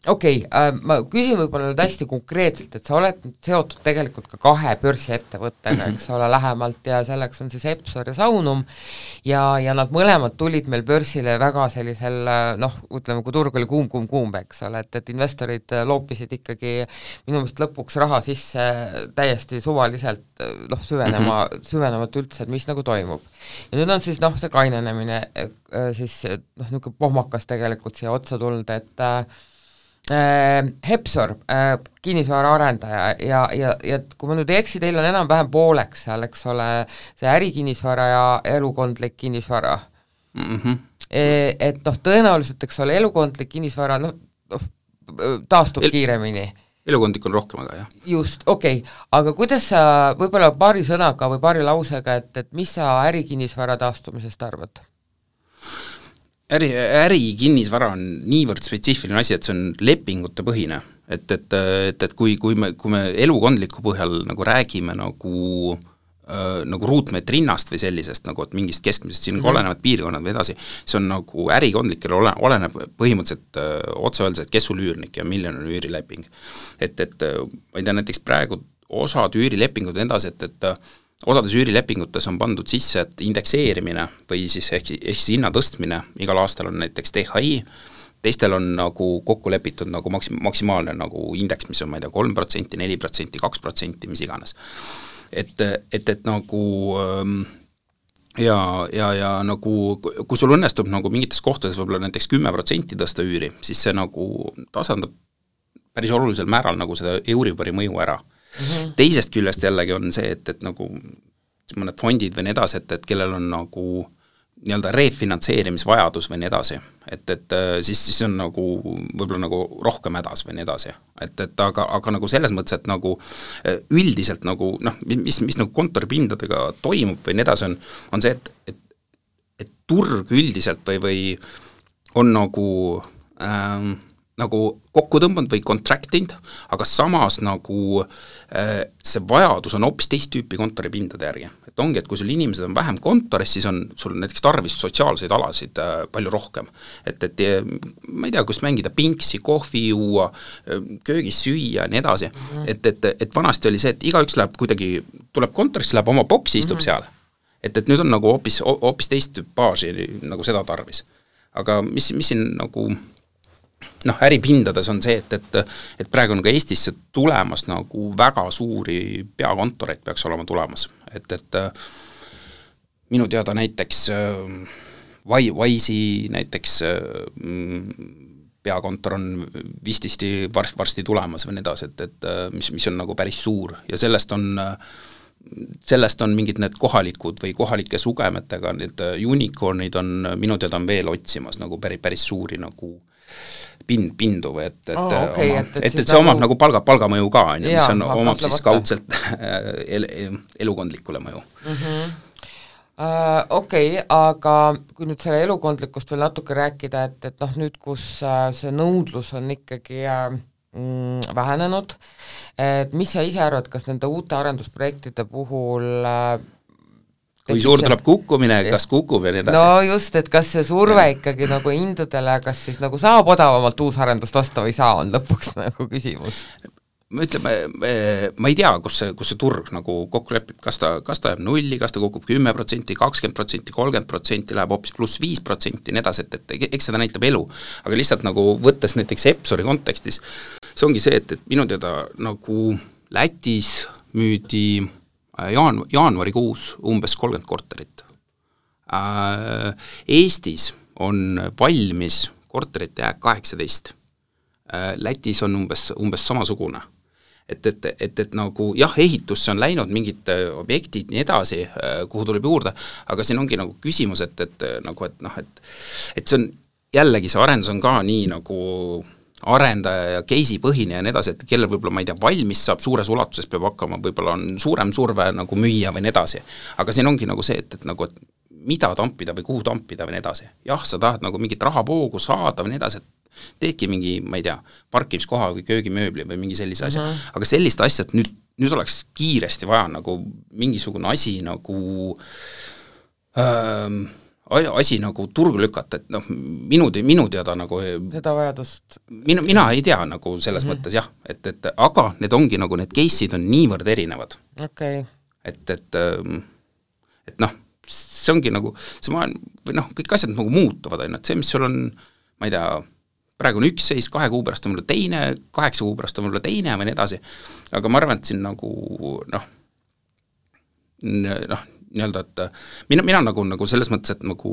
okei, ma küsin võib-olla nüüd hästi konkreetselt, et sa oled seotud tegelikult ka 2 börsiettevõttega, eks ole, lähemalt ja selleks on siis Epsor ja Saunum ja nad mõlemad tulid meil börsile väga sellisel, ütleme, kui turg oli kuum, eks ole, et investorid loopisid ikkagi minu meelest lõpuks raha sisse täiesti suvaliselt, süvenemat üldse, et mis nagu toimub. Ja nüüd on siis see kainenemine siis niisugune pohmakas tegelikult siia otsa tulnud, et Epsor, kinnisvara arendaja ja kui ma nüüd ei eksi, teil on enam-vähem pooleks seal, eks ole, see ärikinnisvara ja elukondlik kinnisvara. Et tõenäoliselt, eks ole, elukondlik kinnisvara taastub kiiremini. Elukondlik on rohkem, aga jah. Just, okei. Aga kuidas sa võib-olla paari sõnaga või paari lausega, et mis sa ärikinnisvara taastumisest arvad? Ärikinnisvara on niivõrd spetsiifiline asi, et see on lepingute põhine, et kui me elukondliku põhjal nagu räägime nagu ruutmeetri hinnast või sellisest, nagu et mingist keskmisest siin olenevad piirkonnad või edasi, see on nagu ärikondlikele oleneb põhimõtteliselt otse öeldes, et kes sul üürnik ja milline on üürileping. Et ma ei tea, näiteks praegu osad üürilepingud edasi, et osades üürilepingutes on pandud sisse, et indekseerimine või siis ehk hinna tõstmine, igal aastal on näiteks THI, teistel on nagu kokku lepitud nagu maksimaalne nagu indeks, mis on, ma ei tea, 3%, 4%, 2%, mis iganes. Et nagu ja nagu, kui sul õnnestub nagu mingites kohtades võib-olla näiteks 10% tõsta üüri, siis see nagu tasandab päris olulisel määral nagu seda Euribori mõju ära. Teisest küljest jällegi on see, et nagu mõned fondid või nii edasi, et kellel on nagu nii-öelda refinantseerimisvajadus või nii edasi, et siis on nagu võib-olla nagu rohkem hädas või nii edasi, et aga nagu selles mõttes, et nagu üldiselt nagu mis nagu kontoripindadega toimub või nii edasi on see, et turg üldiselt või on nagu kokku tõmbanud või contractinud, aga samas nagu see vajadus on hoopis teist tüüpi kontoripindade järgi. Et ongi, et kui sul inimesed on vähem kontoris, siis on sul näiteks tarvis sotsiaalseid alasid palju rohkem. Et ma ei tea, kus mängida pinksi, kohvi juua, köögis süüa ja nii edasi. Et vanasti oli see, et igaüks läheb kuidagi, tuleb kontorisse, läheb oma boksi, istub seal. Et nüüd on nagu hoopis teist tüüpaaži nagu seda tarvis. Aga mis siin nagu äripindades on see, et praegu on ka Eestisse tulemas nagu väga suuri peakontoreid peaks olema tulemas, et minu teada näiteks Wise'i näiteks peakontor on vististi varsti tulemas või nii edasi, et mis on nagu päris suur ja sellest on mingid need kohalikud või kohalike sugemetega, need unicornid on minu teada on veel otsimas nagu päris suuri nagu pindu või et see omab nagu palgamõju ka, mis on, omab siis kaudselt elukondlikule mõju. Okei, aga kui nüüd selle elukondlikust veel natuke rääkida, et nüüd, kus see nõudlus on ikkagi vähenenud, et mis sa ise arvad, kas nende uute arendusprojektide puhul kui suur tuleb kukkumine, kas kukub ja nii edasi? No just, et kas see surve ikkagi nagu hindadele, kas siis nagu saab odavamalt uusarendust osta või saa, on lõpuks nagu küsimus. Ütleme, ma ei tea, kus see turg nagu kokku lepib, kas ta jääb nulli, kas ta kukub 10%, 20%, 30%, läheb hoopis pluss 5%, nii edasi, et eks seda näitab elu. Aga lihtsalt nagu võttes näiteks Epsori kontekstis, see ongi see, et minu teada nagu Lätis müüdi jaanuarikuus umbes 30 korterit. Eestis on valmis korterite jääk 18. Lätis on umbes samasugune. Et nagu jah, ehitusse on läinud mingid objektid nii edasi, kuhu tuleb juurde, aga siin ongi nagu küsimus, et see on jällegi see arendus on ka nii nagu arendaja ja case'i põhine ja nii edasi, et kellel võib-olla, ma ei tea, valmis saab suures ulatuses, peab hakkama, võib-olla on suurem surve nagu müüa või nii edasi. Aga siin ongi nagu see, et mida tampida või kuhu tampida või nii edasi. Jah, sa tahad nagu mingit rahavoogu saada või nii edasi, et teedki mingi, ma ei tea, parkimiskoha või köögimööbli või mingi sellise asja. Aga sellist asja, et nüüd oleks kiiresti vaja nagu mingisugune asi nagu asi nagu turgu lükata, et minu teada nagu seda vajadust mina ei tea nagu selles mõttes jah, et aga need ongi nagu need case'id on niivõrd erinevad. Okay. Et see ongi nagu see või kõik asjad nagu muutuvad, et see, mis sul on, ma ei tea, praegu on üks seis, 2 kuu pärast on mulle teine, 8 kuu pärast on mulle teine või nii edasi, aga ma arvan, et siin nagu nii-öelda, et mina nagu selles mõttes, et nagu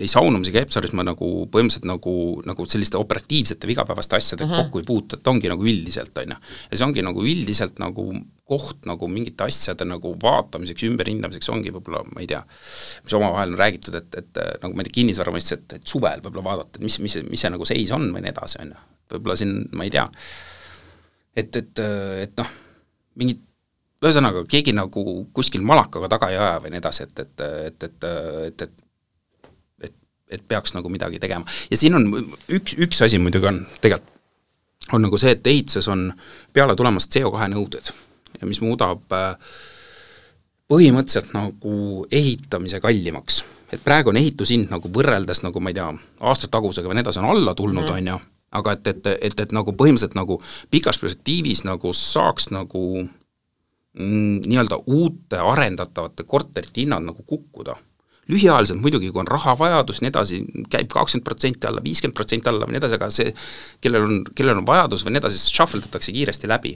ei saunumisega Epsoris ma nagu põhimõtteliselt nagu selliste operatiivsete vigapäevaste asjade kokku ei puutu, et ongi nagu üldiselt, on ju. Ja see ongi nagu üldiselt nagu koht nagu mingite asjade nagu vaatamiseks, ümberhindamiseks ongi võib-olla, ma ei tea, mis omavahel on räägitud, et nagu ma ei tea, kinnisvara mõistes, et suvel võib-olla vaadata, et mis see nagu seis on või nii edasi, on ju. Võib-olla siin, ma ei tea, et mingid ühesõnaga, keegi nagu kuskil malakaga taga ei aja või nii edasi, et peaks nagu midagi tegema. Ja siin on üks asi muidugi on tegelikult on nagu see, et ehituses on peale tulemas CO2 nõuded, mis muudab põhimõtteliselt nagu ehitamise kallimaks. Et praegu on ehitushind nagu võrreldes nagu, ma ei tea, aastatagusega või nii edasi on alla tulnud, on ju, aga et nagu põhimõtteliselt nagu pikas perspektiivis nagu saaks nagu nii-öelda uute arendatavate korterite hinnad nagu kukkuda. Lühiajaliselt muidugi, kui on rahavajadus, nii edasi, käib 20% alla, 50% alla või nii edasi, aga see, kellel on vajadus või nii edasi, shuffledatakse kiiresti läbi.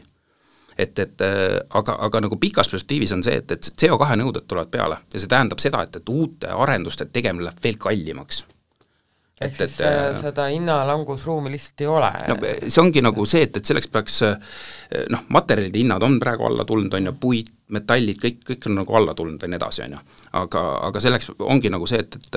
Aga nagu pikas perspektiivis on see, et CO2 nõuded tulevad peale ja see tähendab seda, et uute arenduste tegemine läheb veel kallimaks. ehk siis seda hinnalangusruumi lihtsalt ei ole. No see ongi nagu see, et selleks peaks materjalide hinnad on praegu alla tulnud, on ju, puit, metallid, kõik on nagu alla tulnud ja nii edasi, on ju. Aga selleks ongi nagu see, et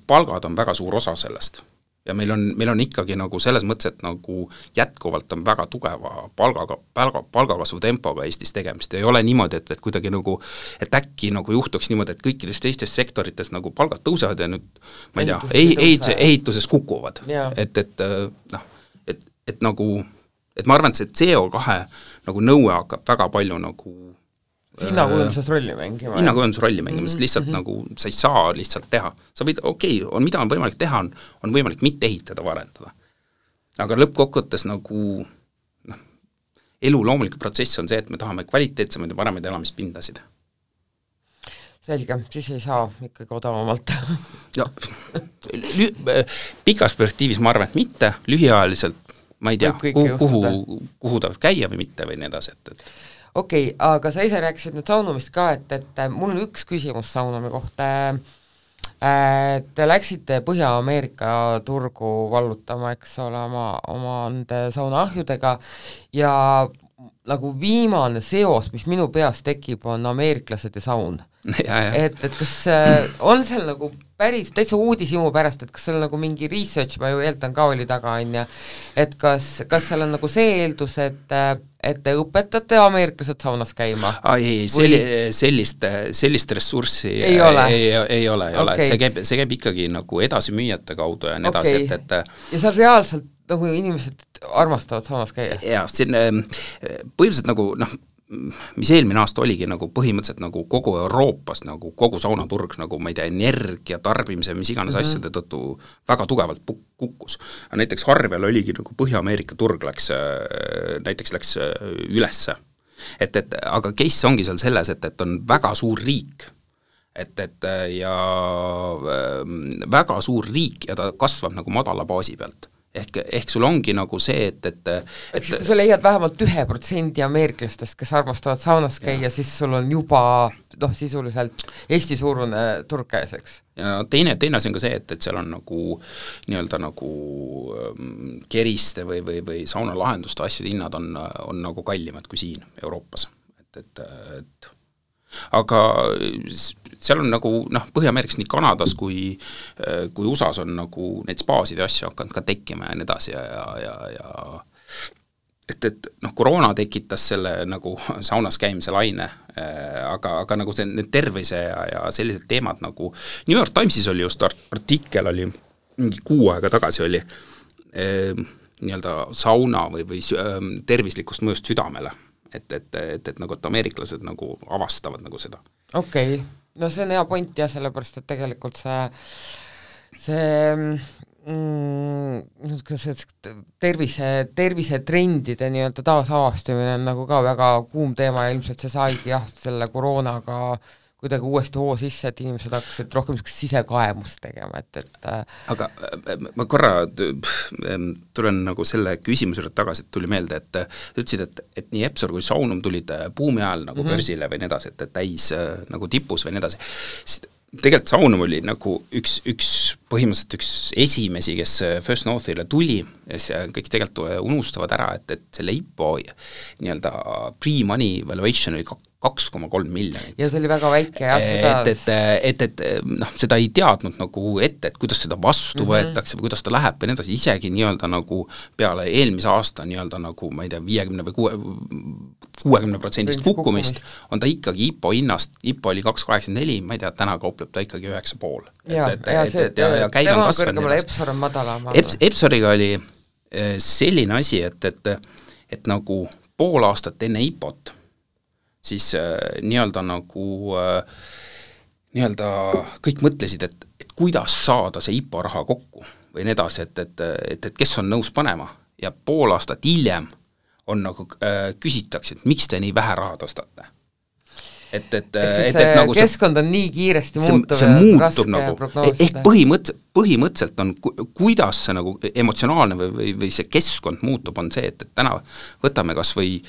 palgad on väga suur osa sellest. Ja meil on ikkagi nagu selles mõttes, et nagu jätkuvalt on väga tugeva palgakasvu tempoga Eestis tegemist. Ei ole niimoodi, et kuidagi nagu, et äkki nagu juhtuks niimoodi, et kõikides teistes sektorites nagu palgad tõusevad ja nüüd, ma ei tea, ehituses kukuvad. Et nagu, et ma arvan, et see CO2 nagu nõue hakkab väga palju nagu hinnakujundus rolli mängima. Sest lihtsalt nagu sa ei saa lihtsalt teha. Sa võid, mida on võimalik teha, on võimalik mitte ehitada, varendada. Aga lõppkokkuvõttes nagu elu loomulik protsess on see, et me tahame kvaliteetsemaid ja paremaid elamispindasid. Selge, siis ei saa ikkagi odavamalt. Ja, pikas perspektiivis ma arvan, et mitte, lühiajaliselt ma ei tea, kuhu ta käia või mitte või nii edasi, et Okei, aga sa ise rääkisid nüüd saunumist ka, et mul on üks küsimus saunumi kohta. Te läksite Põhja-Ameerika turgu vallutama, eks ole, oma saunaahjudega ja nagu viimane seos, mis minu peas tekib, on ameeriklased ja saun. Et kas on seal nagu päris täitsa uudishimu pärast, et kas seal nagu mingi research, ma ju eeldan ka oli taga, et kas seal on nagu see eeldus, et te õpetate ameeriklased saunas käima? Sellist ressurssi ei ole. Okay. See käib ikkagi nagu edasimüüjate kaudu ja nii edasi, ja seal reaalselt nagu inimesed armastavad saunas käia? Jaa, põhimõtteliselt nagu mis eelmine aasta oligi nagu põhimõtteliselt nagu kogu Euroopas nagu kogu saunaturg nagu ma ei tea, energia tarbimise mis iganes asjade tõttu väga tugevalt kukkus. Näiteks Harvel oligi nagu Põhja-Ameerika turg läks ülesse. Aga case ongi seal selles, et on väga suur riik, ja väga suur riik ja ta kasvab nagu madala baasi pealt. Ehk sul ongi nagu see, et kui sa leiad vähemalt 1% ameeriklastest, kes armastavad saunas käia, siis sul on juba sisuliselt Eesti-suurune turg käes, eks? Ja teine asi on ka see, et seal on nagu nii-öelda nagu keriste või saunalahenduste asjade hinnad on nagu kallimad kui siin Euroopas. Aga seal on nagu Põhja-Ameerikas nii Kanadas kui USAs on nagu neid spaasid ja asju hakanud ka tekkima ja nii edasi ja koroona tekitas selle nagu saunas käimise laine, aga nagu see need tervise ja sellised teemad nagu New York Timesis oli just artikkel oli mingi 6 aega tagasi oli nii-öelda sauna või tervislikust mõjust südamele. Et nagu, et ameeriklased nagu avastavad nagu seda. Okei, no see on hea point ja sellepärast, et tegelikult see tervisetrendide nii-öelda taasavastamine on nagu ka väga kuum teema ja ilmselt see saigi selle koroonaga kuidagi uuesti hoo sisse, et inimesed hakkasid rohkem sisekaemust tegema, Aga ma korra tulen nagu selle küsimusele tagasi, et tuli meelde, et ütlesid, et nii Epsor kui Saunum tulid buumi ajal nagu börsile või nii edasi, et täis nagu tipus või nii edasi. Tegelikult Saunum oli nagu üks põhimõtteliselt üks esimesi, kes First Northile tuli ja kõik tegelikult unustavad ära, et selle IPO nii-öelda pre-money valuation oli 2,3 miljonit. Ja see oli väga väike, seda ei teadnud nagu ette, et kuidas seda vastu võetakse või kuidas ta läheb või nii edasi, isegi nii-öelda nagu peale eelmise aasta nii-öelda nagu, ma ei tea, 50 või 60% kukkumist, on ta ikkagi IPO hinnast, IPO oli 2,84, ma ei tea, täna kaupleb ta ikkagi 9,5. Ja käib on kasvanud. Epsor on madalam. Epsoriga oli selline asi, et nagu pool aastat enne IPO-t siis nii-öelda nagu nii-öelda kõik mõtlesid, et kuidas saada see IPO raha kokku või nii edasi, et kes on nõus panema ja pool aastat hiljem on nagu küsitakse, et miks te nii vähe raha tõstate. Nagu keskkond on nii kiiresti muutuv see muutub nagu, ehk põhimõtteliselt on, kuidas see nagu emotsionaalne või see keskkond muutub, on see, et täna võtame kas või,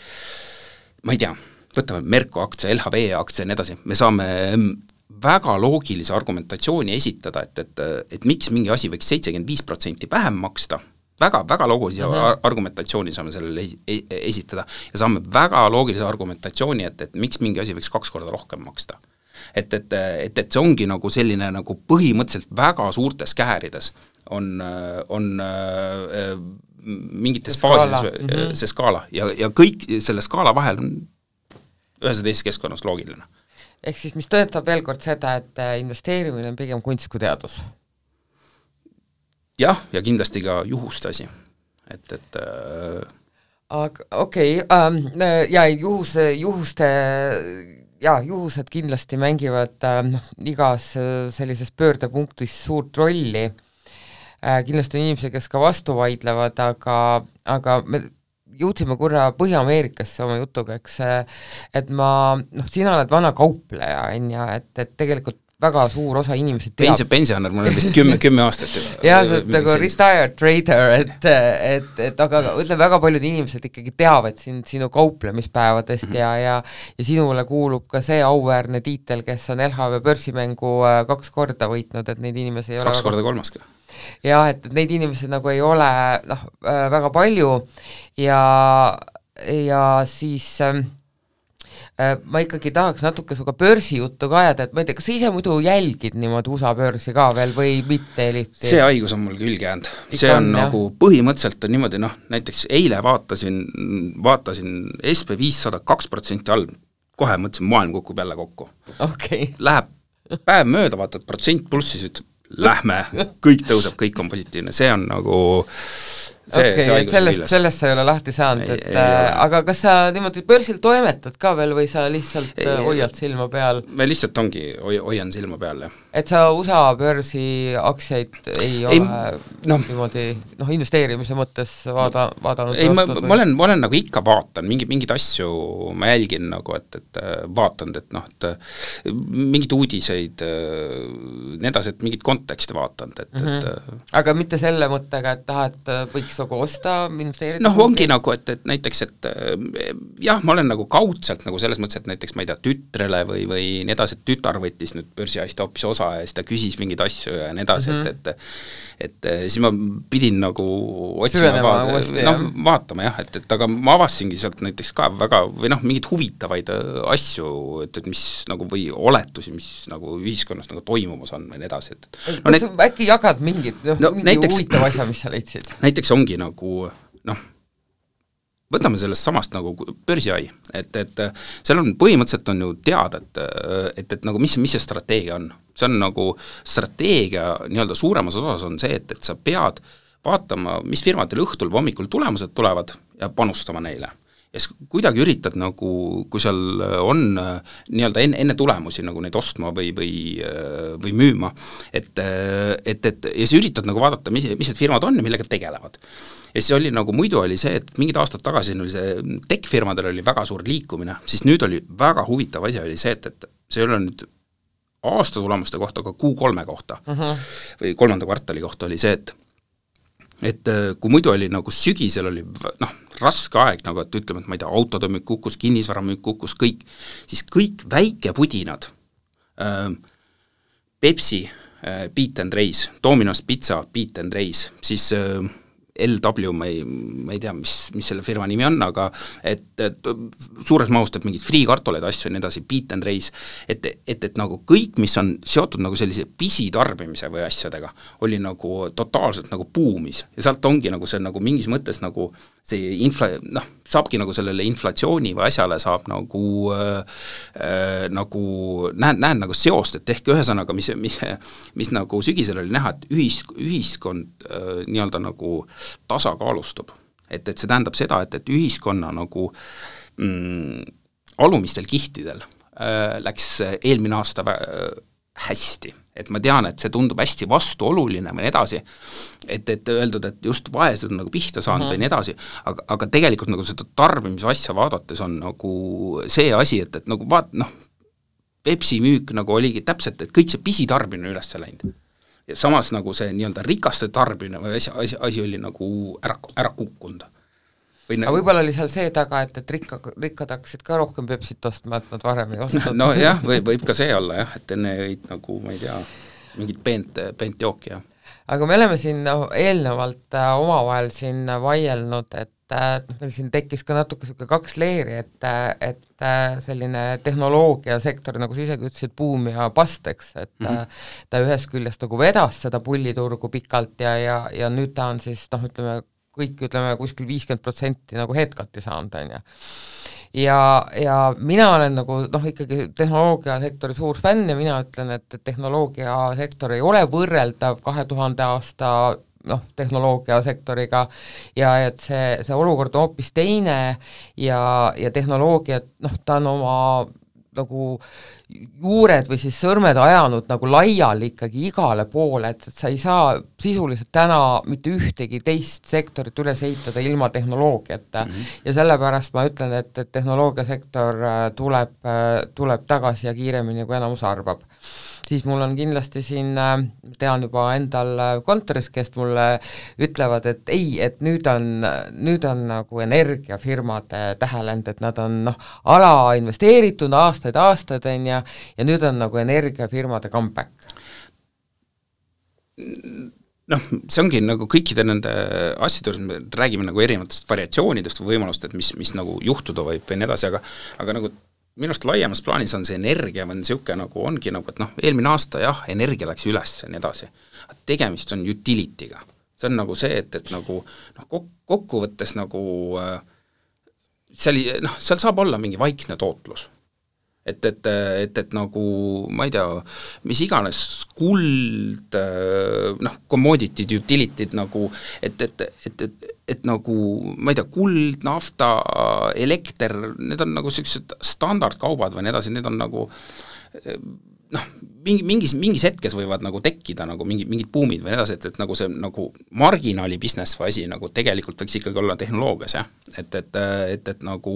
ma ei tea, võtame Merko aktsia, LHV aktsia ja nii edasi, me saame väga loogilise argumentatsiooni esitada, et miks mingi asi võiks 75% vähem maksta, väga loogilise argumentatsiooni saame sellele esitada ja saame väga loogilise argumentatsiooni, et miks mingi asi võiks 2 korda rohkem maksta. Et see ongi nagu selline nagu põhimõtteliselt väga suurtes käärides on mingites faasides see skaala ja kõik selle skaala vahel on ühes ja teises keskkonnas loogiline. Ehk siis, mis tõetab veel kord seda, et investeerimine on pigem kunst kui teadus? Jah, ja kindlasti ka juhuste asi. Aga okei, ja juhused kindlasti mängivad igas sellises pöördepunktis suurt rolli. Kindlasti on inimesi, kes ka vastu vaidlevad, aga me jõudsime korra Põhja-Ameerikasse oma jutuga, eks, et sina oled vana kaupleja, et tegelikult väga suur osa inimesi teab. Pensioner, mul on vist 10 aastat. Jah, see on nagu retired trader, aga ütleme, väga paljud inimesed ikkagi teavad sinu kauplemispäevadest ja sinule kuulub ka see auväärne tiitel, kes on LHV börsimängu 2 korda võitnud, et neid inimesi ei ole 2 korda 3 ka. Jah, et neid inimesi nagu ei ole väga palju ja siis ma ikkagi tahaks natuke suga börsijuttu ka ajada, et ma ei tea, kas sa ise muidu jälgid niimoodi USA börsi ka veel või mitte eriti? See haigus on mul külge jäänud. See on nagu põhimõtteliselt on niimoodi, näiteks eile vaatasin SP500 2% all, kohe mõtlesin, maailm kukub jälle kokku. Okay. Läheb päev mööda, vaatad protsent plussis, ütleb, lähme, kõik tõuseb, kõik on positiivne, see on nagu sellest sa ei ole lahti saanud, aga kas sa niimoodi börsil toimetad ka veel või sa lihtsalt hoiad silma peal? Me lihtsalt hoian silma peal, jah. Et sa USA börsi aktsiaid ei ole niimoodi investeerimise mõttes vaadanud? Ei, ma olen nagu ikka vaatan, mingid asju ma jälgin nagu, et vaatan, et mingid uudiseid, need asjad, mingid konteksti vaatan. Aga mitte selle mõttega, et tahad võiks nagu osta, investeerida? Ongi nagu, et näiteks, et jah, ma olen nagu kaudselt nagu selles mõttes, et näiteks ma ei tea, tütrele või nii edasi, et tütar võttis nüüd börsiaista hoopis osa ja siis ta küsis mingeid asju ja nii edasi, et siis ma pidin nagu otsima, vaatama jah, et aga ma avasingi sealt näiteks ka väga, või mingid huvitavaid asju, et mis nagu või oletusi, mis nagu ühiskonnas nagu toimumas on või nii edasi. Kas äkki jagad mingi huvitav asja, mis sa leidsid? Näiteks ongi nagu, võtame sellest samast nagu börsiai, et seal on põhimõtteliselt on ju teada, et nagu mis see strateegia on. See on nagu strateegia nii-öelda suuremas osas on see, et sa pead vaatama, mis firmadel õhtul või hommikul tulemused tulevad ja panustama neile. Ja kuidagi üritad nagu, kui seal on nii-öelda enne tulemusi nagu neid ostma või müüma, et ja sa üritad nagu vaadata, mis need firmad on ja millega tegelevad. Ja siis oli nagu, muidu oli see, et mingid aastad tagasi oli see tech-firmadel oli väga suur liikumine, siis nüüd oli väga huvitav asi oli see, et see ei ole nüüd aasta tulemuste kohta, aga Q3 kohta või 3. kvartali kohta oli see, et kui muidu oli nagu sügisel oli raske aeg, nagu et ütleme, et ma ei tea, autode müük kukkus, kinnisvara müük kukkus, kõik, siis kõik väikepudinad, Pepsi, Beat and Race, Domino's Pizza, Beat and Race, siis LW, ma ei tea, mis selle firma nimi on, aga et suures mahus teeb mingid friikartuleid asju ja nii edasi, Beat and Race, et nagu kõik, mis on seotud nagu sellise pisitarbimise või asjadega, oli nagu totaalselt nagu buumis ja sealt ongi nagu see nagu mingis mõttes nagu see saabki nagu sellele inflatsiooni või asjale saab nagu näed nagu seost, et ehk ühesõnaga, mis nagu sügisel oli näha, et ühiskond nii-öelda nagu tasakaalustub. Et see tähendab seda, et ühiskonna nagu alumistel kihtidel läks eelmine aasta hästi. Et ma tean, et see tundub hästi vastuoluline või nii edasi, et öeldud, et just vaesed on nagu pihta saanud või nii edasi, aga tegelikult nagu seda tarbimise asja vaadates on nagu see asi, et nagu Pepsi müük nagu oligi täpselt, et kõik see pisitarbimine üles läinud. Ja samas nagu see nii-öelda rikaste tarbimine või asi oli nagu ära kukkunud. aga võib-olla oli seal see taga, et rikkad hakkasid ka rohkem Pepsit ostma, et nad varem ei ostnud. No jah, võib ka see olla jah, et enne jõid nagu, ma ei tea, mingit peent jooki, jah. Aga me oleme siin eelnevalt omavahel siin vaielnud, et meil siin tekkis ka natuke selline 2 leeri, et selline tehnoloogiasektor, nagu sa isegi ütlesid, buum ja past, eks, et ta ühest küljest nagu vedas seda pulliturgu pikalt ja nüüd ta on siis, ütleme, kuskil 50% nagu headcut'i saanud, on ju. Ja mina olen nagu ikkagi tehnoloogiasektori suur fänn ja mina ütlen, et tehnoloogiasektor ei ole võrreldav 2000 aasta tehnoloogiasektoriga ja et see olukord on hoopis teine ja tehnoloogia, ta on oma nagu juured või siis sõrmed ajanud nagu laiali ikkagi igale poole, et sa ei saa sisuliselt täna mitte ühtegi teist sektorit üles ehitada ilma tehnoloogiata ja sellepärast ma ütlen, et tehnoloogiasektor tuleb tagasi ja kiiremini, kui enamus arvab. Siis mul on kindlasti siin, tean juba endal kontoris, kes mulle ütlevad, et ei, et nüüd on nagu energiafirmade tähelend, et nad on ala investeeritud aastaid, on ja nüüd on nagu energiafirmade comeback. See ongi nagu kõikide nende asjade, me räägime nagu erinevatest variatsioonidest või võimalust, et mis nagu juhtuda võib või nii edasi, aga nagu minust laiemas plaanis on see energia või niisugune nagu ongi nagu, et eelmine aasta jah, energia läks üles ja nii edasi. Tegemist on utility'ga. See on nagu see, et nagu kokkuvõttes nagu seal saab olla mingi vaikne tootlus. Et nagu, ma ei tea, mis iganes kuld, commodity, utility'd nagu, et nagu, ma ei tea, kuld, nafta, elekter, need on nagu sellised standardkaubad või nii edasi, need on nagu mingis hetkes võivad nagu tekkida nagu mingid buumid või nii edasi, et nagu see nagu marginaali business või asi nagu tegelikult võiks ikkagi olla tehnoloogias, jah, et nagu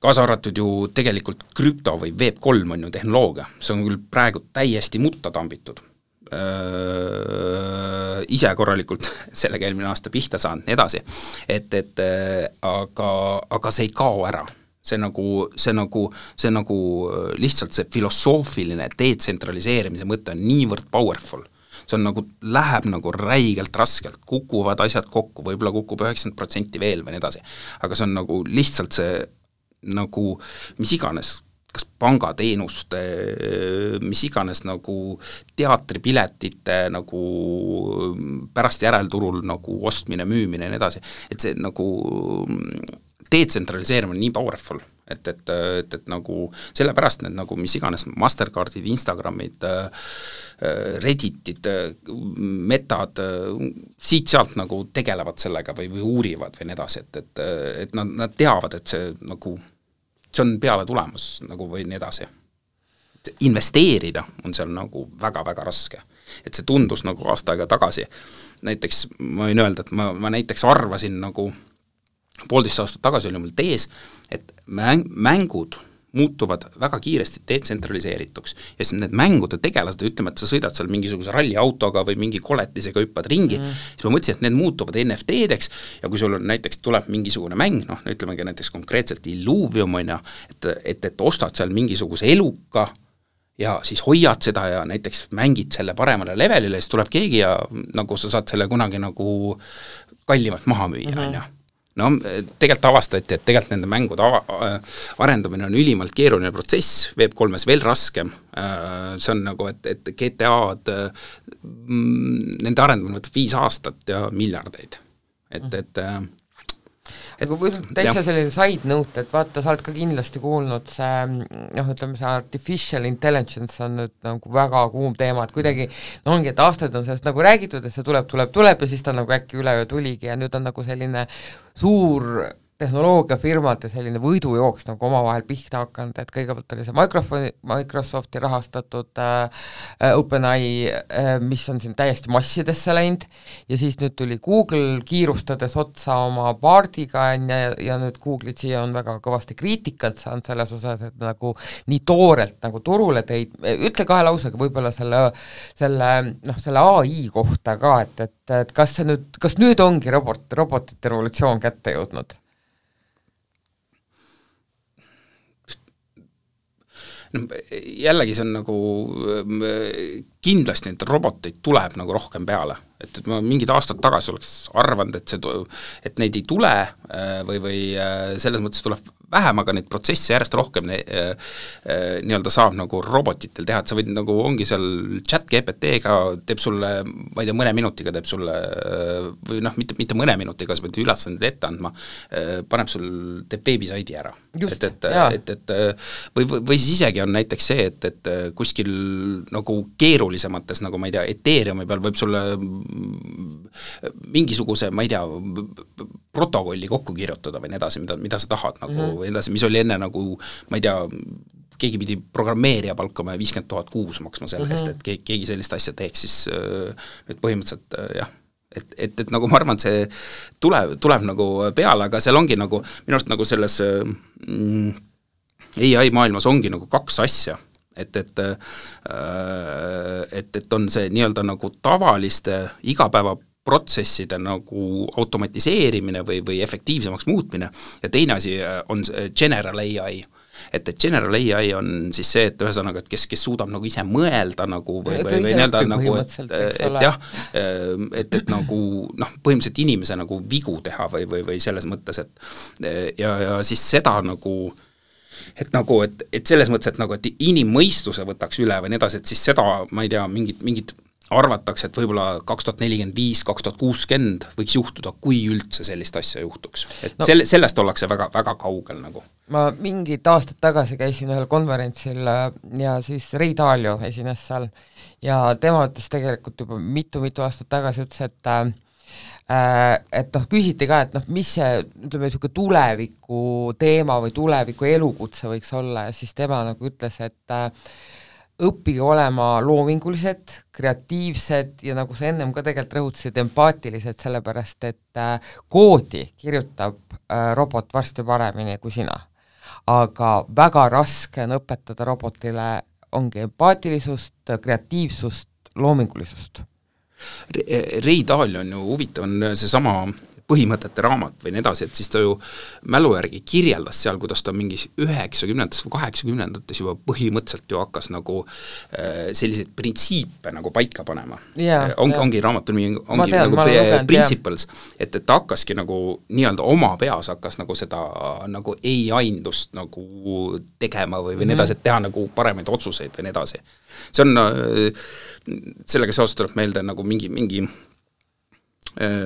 kaasa arvatud ju tegelikult krüpto või Web3 on ju tehnoloogia, see on küll praegu täiesti mutta tambitud. Ise korralikult sellega eelmine aasta pihta saanud, nii edasi, aga see ei kao ära. See nagu lihtsalt see filosoofiline detsentraliseerimise mõte on niivõrd powerful. See on nagu, läheb nagu räigelt raskelt, kukuvad asjad kokku, võib-olla kukub 90% veel või nii edasi, aga see on nagu lihtsalt see nagu mis iganes, kas pangateenuste, mis iganes nagu teatripiletite nagu pärast järelturul nagu ostmine, müümine ja nii edasi, et see nagu detsentraliseerimine on nii powerful, et nagu sellepärast need nagu mis iganes Mastercardid, Instagramid, Redditid, Metad, siit-sealt nagu tegelevad sellega või uurivad või nii edasi, et nad teavad, et see nagu see on peale tulemus nagu või nii edasi. Investeerida on seal nagu väga-väga raske. Et see tundus nagu aasta aega tagasi. Näiteks ma võin öelda, et ma näiteks arvasin nagu 1,5 aastat tagasi oli mul tees, et mängud muutuvad väga kiiresti detsentraliseerituks ja siis need mängude tegelased, ütleme, et sa sõidad seal mingisuguse ralliautoga või mingi koletisega hüppad ringi, siis ma mõtlesin, et need muutuvad NFT-deks ja kui sul on näiteks tuleb mingisugune mäng, ütlemegi näiteks konkreetselt Illuvium on ja, et ostad seal mingisuguse eluka ja siis hoiad seda ja näiteks mängid selle paremale levelile, siis tuleb keegi ja nagu sa saad selle kunagi nagu kallimalt maha müüa, on ju. Tegelikult avastati, et tegelikult nende mängude arendamine on ülimalt keeruline protsess, Web3-s veel raskem, see on nagu, et GTA-d, nende arendamine võtab 5 aastat ja miljardeid, aga täitsa selline side note, et vaata, sa oled ka kindlasti kuulnud see, ütleme see artificial intelligence on nüüd nagu väga kuum teema, et kuidagi ongi, et aastaid on sellest nagu räägitud, et see tuleb ja siis ta nagu äkki üleöö tuligi ja nüüd on nagu selline suur tehnoloogiafirmade selline võidujooks nagu omavahel pihta hakanud, et kõigepealt oli see Microsofti rahastatud OpenAI, mis on siin täiesti massidesse läinud, ja siis nüüd tuli Google kiirustades otsa oma Bardiga, ja nüüd Google'id siia on väga kõvasti kriitikat saanud selles osas, et nagu nii toorelt nagu turule teid, ütle 2 lausega võib-olla selle AI kohta ka, et kas nüüd ongi robotite revolutsioon kätte jõudnud? Jällegi see on nagu kindlasti neid roboteid tuleb nagu rohkem peale, et ma mingid aastad tagasi oleks arvanud, et neid ei tule või selles mõttes tuleb vähem, aga neid protsesse järjest rohkem nii-öelda saab nagu robotitel teha, et sa võid nagu, ongi seal chat GPT-ga teeb sulle, ma ei tea, mõne minutiga teeb sulle, või noh, mitte mõne minutiga, sa pead ülesanded ette andma, teeb beebisaidi ära. Või siis isegi on näiteks see, et kuskil nagu keerulisemates, nagu ma ei tea, Ethereumi peal võib sulle mingisuguse, ma ei tea, protokolli kokku kirjutada või nii edasi, mida sa tahad nagu, või edasi, mis oli enne nagu, ma ei tea, keegi pidi programmeerija palkama 50 000 kuus maksma selle eest, et keegi sellist asja teeks, siis nüüd põhimõtteliselt jah, et nagu ma arvan, et see tuleb nagu peale, aga seal ongi nagu, minu arust nagu selles AI maailmas ongi nagu 2 asja, et on see nii-öelda nagu tavaliste igapäevaprotsesside nagu automatiseerimine või efektiivsemaks muutmine ja teine asi on general AI. Et general AI on siis see, et ühesõnaga, et kes suudab nagu ise mõelda nagu või nii-öelda nagu, et jah, et nagu noh, põhimõtteliselt inimese nagu vigu teha või selles mõttes, et ja siis seda nagu et selles mõttes, et nagu, et inimmõistuse võtaks üle või nii edasi, et siis seda, ma ei tea, mingid arvatakse, et võib-olla 2045, 2060 võiks juhtuda, kui üldse sellist asja juhtuks. Et sellest ollakse väga, väga kaugel nagu. Ma mingid aastad tagasi käisin ühel konverentsil ja siis Ray Dalio esines seal ja tema ütles tegelikult juba mitu aastat tagasi ütles, et noh, küsiti ka, et noh, mis see, ütleme, tuleviku teema või tuleviku elukutse võiks olla ja siis tema nagu ütles, et õppige olema loomingulised, kreatiivsed ja nagu sa ennem ka tegelikult rõhutasid, empaatilised, sellepärast et koodi kirjutab robot varsti paremini kui sina. Aga väga raske on õpetada robotile ongi empaatilisust, kreatiivsust, loomingulisust. Ray Dalio on ju huvitav, on seesama põhimõtete raamat või nii edasi, et siis ta ju mälu järgi kirjeldas seal, kuidas ta mingis 90-ndates või 80-ndates juba põhimõtteliselt ju hakkas nagu selliseid printsiipe nagu paika panema. Ongi raamatul ongi nagu principles, et ta hakkaski nagu nii-öelda oma peas hakkas nagu seda nagu ei-aindust nagu tegema või nii edasi, et teha nagu paremaid otsuseid või nii edasi. See on, sellega seoses tuleb meelde nagu mingi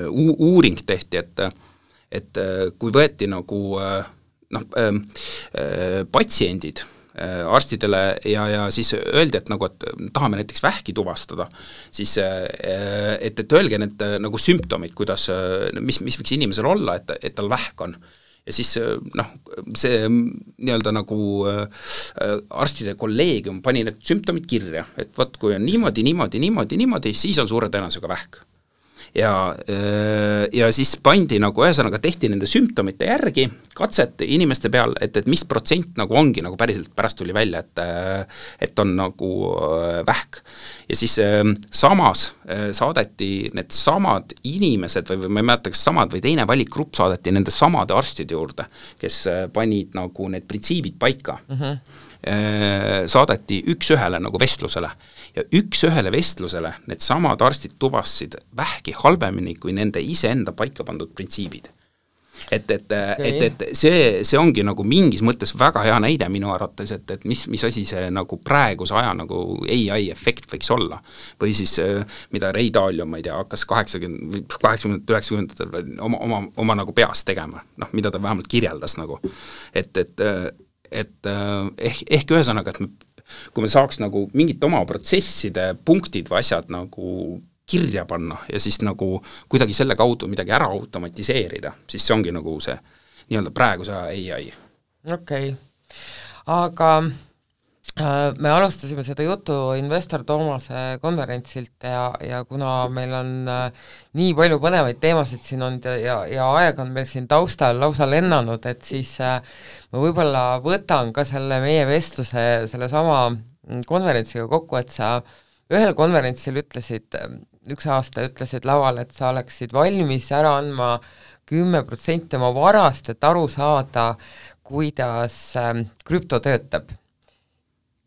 uuring tehti, et kui võeti nagu patsiendid arstidele ja siis öeldi, et nagu, et tahame näiteks vähki tuvastada, siis et öelge need nagu sümptomid, kuidas, mis võiks inimesel olla, et tal vähk on. Ja siis noh, see nii-öelda nagu arstide kolleegium pani need sümptomid kirja, et võt, kui on niimoodi, siis on suure tõenäosusega vähk. Ja siis pandi nagu ühesõnaga tehti nende sümptomite järgi katset inimeste peal, et mis protsent nagu ongi nagu päriselt pärast tuli välja, et on nagu vähk. Ja siis samas saadeti need samad inimesed või ma ei mäleta, kas samad või teine valikgrupp saadeti nende samade arstide juurde, kes panid nagu need printsiibid paika. Saadeti üks-ühele nagu vestlusele ja üks-ühele vestlusele need samad arstid tuvastasid vähki halvemini kui nende iseenda paika pandud printsiibid. Et see ongi nagu mingis mõttes väga hea näide minu arvates, et mis asi see nagu praeguse aja nagu AI efekt võiks olla. Või siis, mida Ray Dalio, ma ei tea, hakkas 80-90 oma nagu peas tegema, noh, mida ta vähemalt kirjeldas nagu, et ehk ühesõnaga, et kui me saaks nagu mingit oma protsesside punktid või asjad nagu kirja panna ja siis nagu kuidagi selle kaudu midagi ära automatiseerida, siis see ongi nagu see nii-öelda praeguse AI. Okei. Aga me alustasime seda jutu Investor Toomase konverentsilt ja kuna meil on nii palju põnevaid teemasid siin olnud ja aeg on meil siin taustal lausa lennanud, et siis ma võib-olla võtan ka selle meie vestluse sellesama konverentsiga kokku, et sa ühel konverentsil ütlesid, üks aasta ütlesid laval, et sa oleksid valmis ära andma 10% oma varast, et aru saada, kuidas krüpto töötab.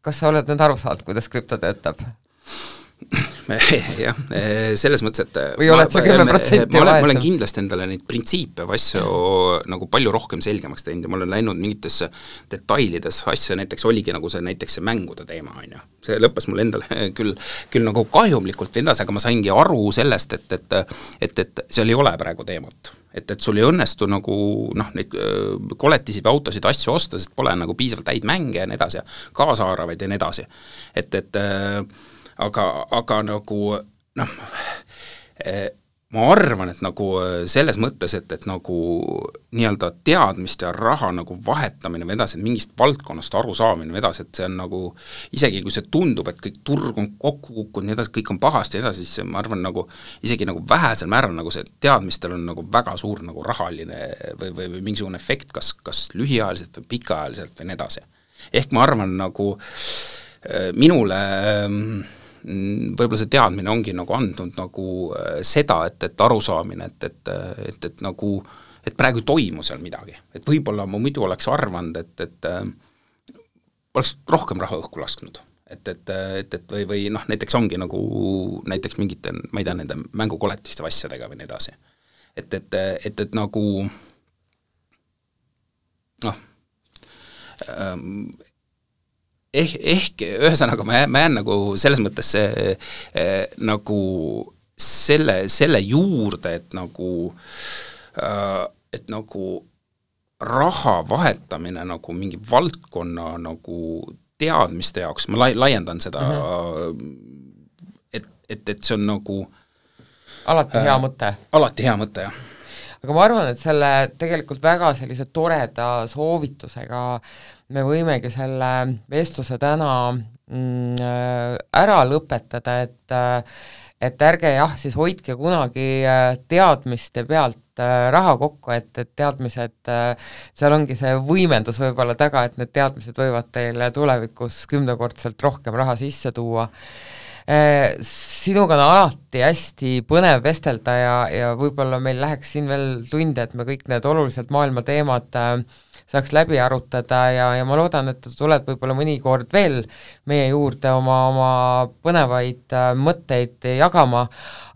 Kas sa oled nüüd aru saanud, kuidas krüpto töötab? Jah, selles mõttes, et või oled sa 10% ma olen kindlasti endale neid printsiipe või asju nagu palju rohkem selgemaks teinud ja ma olen läinud mingitesse detailides asja, näiteks oligi nagu see näiteks see mängude teema, on ju. See lõppes mul endale küll nagu kahjumlikult endas, aga ma saingi aru sellest, et seal ei ole praegu teemat. Et sul ei õnnestu nagu neid koletisi või autosid asju osta, sest pole nagu piisavalt häid mänge ja nii edasi, kaasaaravaid ja nii edasi. Aga nagu ma arvan, et nagu selles mõttes, et nagu nii-öelda teadmist ja raha nagu vahetamine või edasi, et mingist valdkonnast aru saamine või edasi, et see on nagu, isegi kui see tundub, et kõik turg on kokku kukkunud, nii edasi, kõik on pahasti ja edasi, siis ma arvan nagu, isegi nagu vähesel määral nagu see teadmistel on nagu väga suur nagu rahaline või mingisugune efekt, kas lühiajaliselt või pikaajaliselt või nii edasi. Ehk ma arvan nagu minule võib-olla see teadmine ongi nagu andnud nagu seda, et arusaamine, et nagu, et praegu ei toimu seal midagi. Et võib-olla ma muidu oleks arvanud, et oleks rohkem raha õhku lasknud. Või näiteks ongi nagu näiteks mingite, ma ei tea, nende mängukoletiste asjadega või nii edasi. Et nagu ehk ühesõnaga ma jään nagu selles mõttes nagu selle juurde, et nagu raha vahetamine nagu mingi valdkonna nagu teadmiste jaoks, ma laiendan seda, et see on nagu alati hea mõte. Alati hea mõte, jah. Aga ma arvan, et selle tegelikult väga sellise toreda soovitusega me võimegi selle vestluse täna ära lõpetada, et ärge jah, siis hoidke kunagi teadmiste pealt raha kokku, et teadmised, seal ongi see võimendus võib-olla taga, et need teadmised võivad teile tulevikus 10-kordselt rohkem raha sisse tuua. Sinuga on alati hästi põnev vestelda ja võib-olla meil läheks siin veel tunde, et me kõik need oluliselt maailma teemad saaks läbi arutada ja ma loodan, et tuled võib-olla mõnikord veel meie juurde oma põnevaid mõtteid jagama,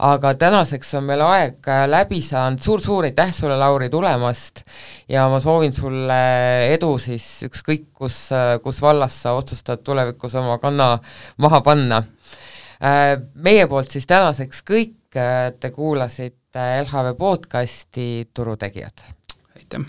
aga tänaseks on meil aeg läbi saanud. Suur aitäh sulle, Lauri, tulemast ja ma soovin sulle edu siis ükskõik, kus vallas sa otsustad tulevikus oma kanna maha panna. Meie poolt siis tänaseks kõik, te kuulasite LHV podcasti Turutegijad. Aitäh!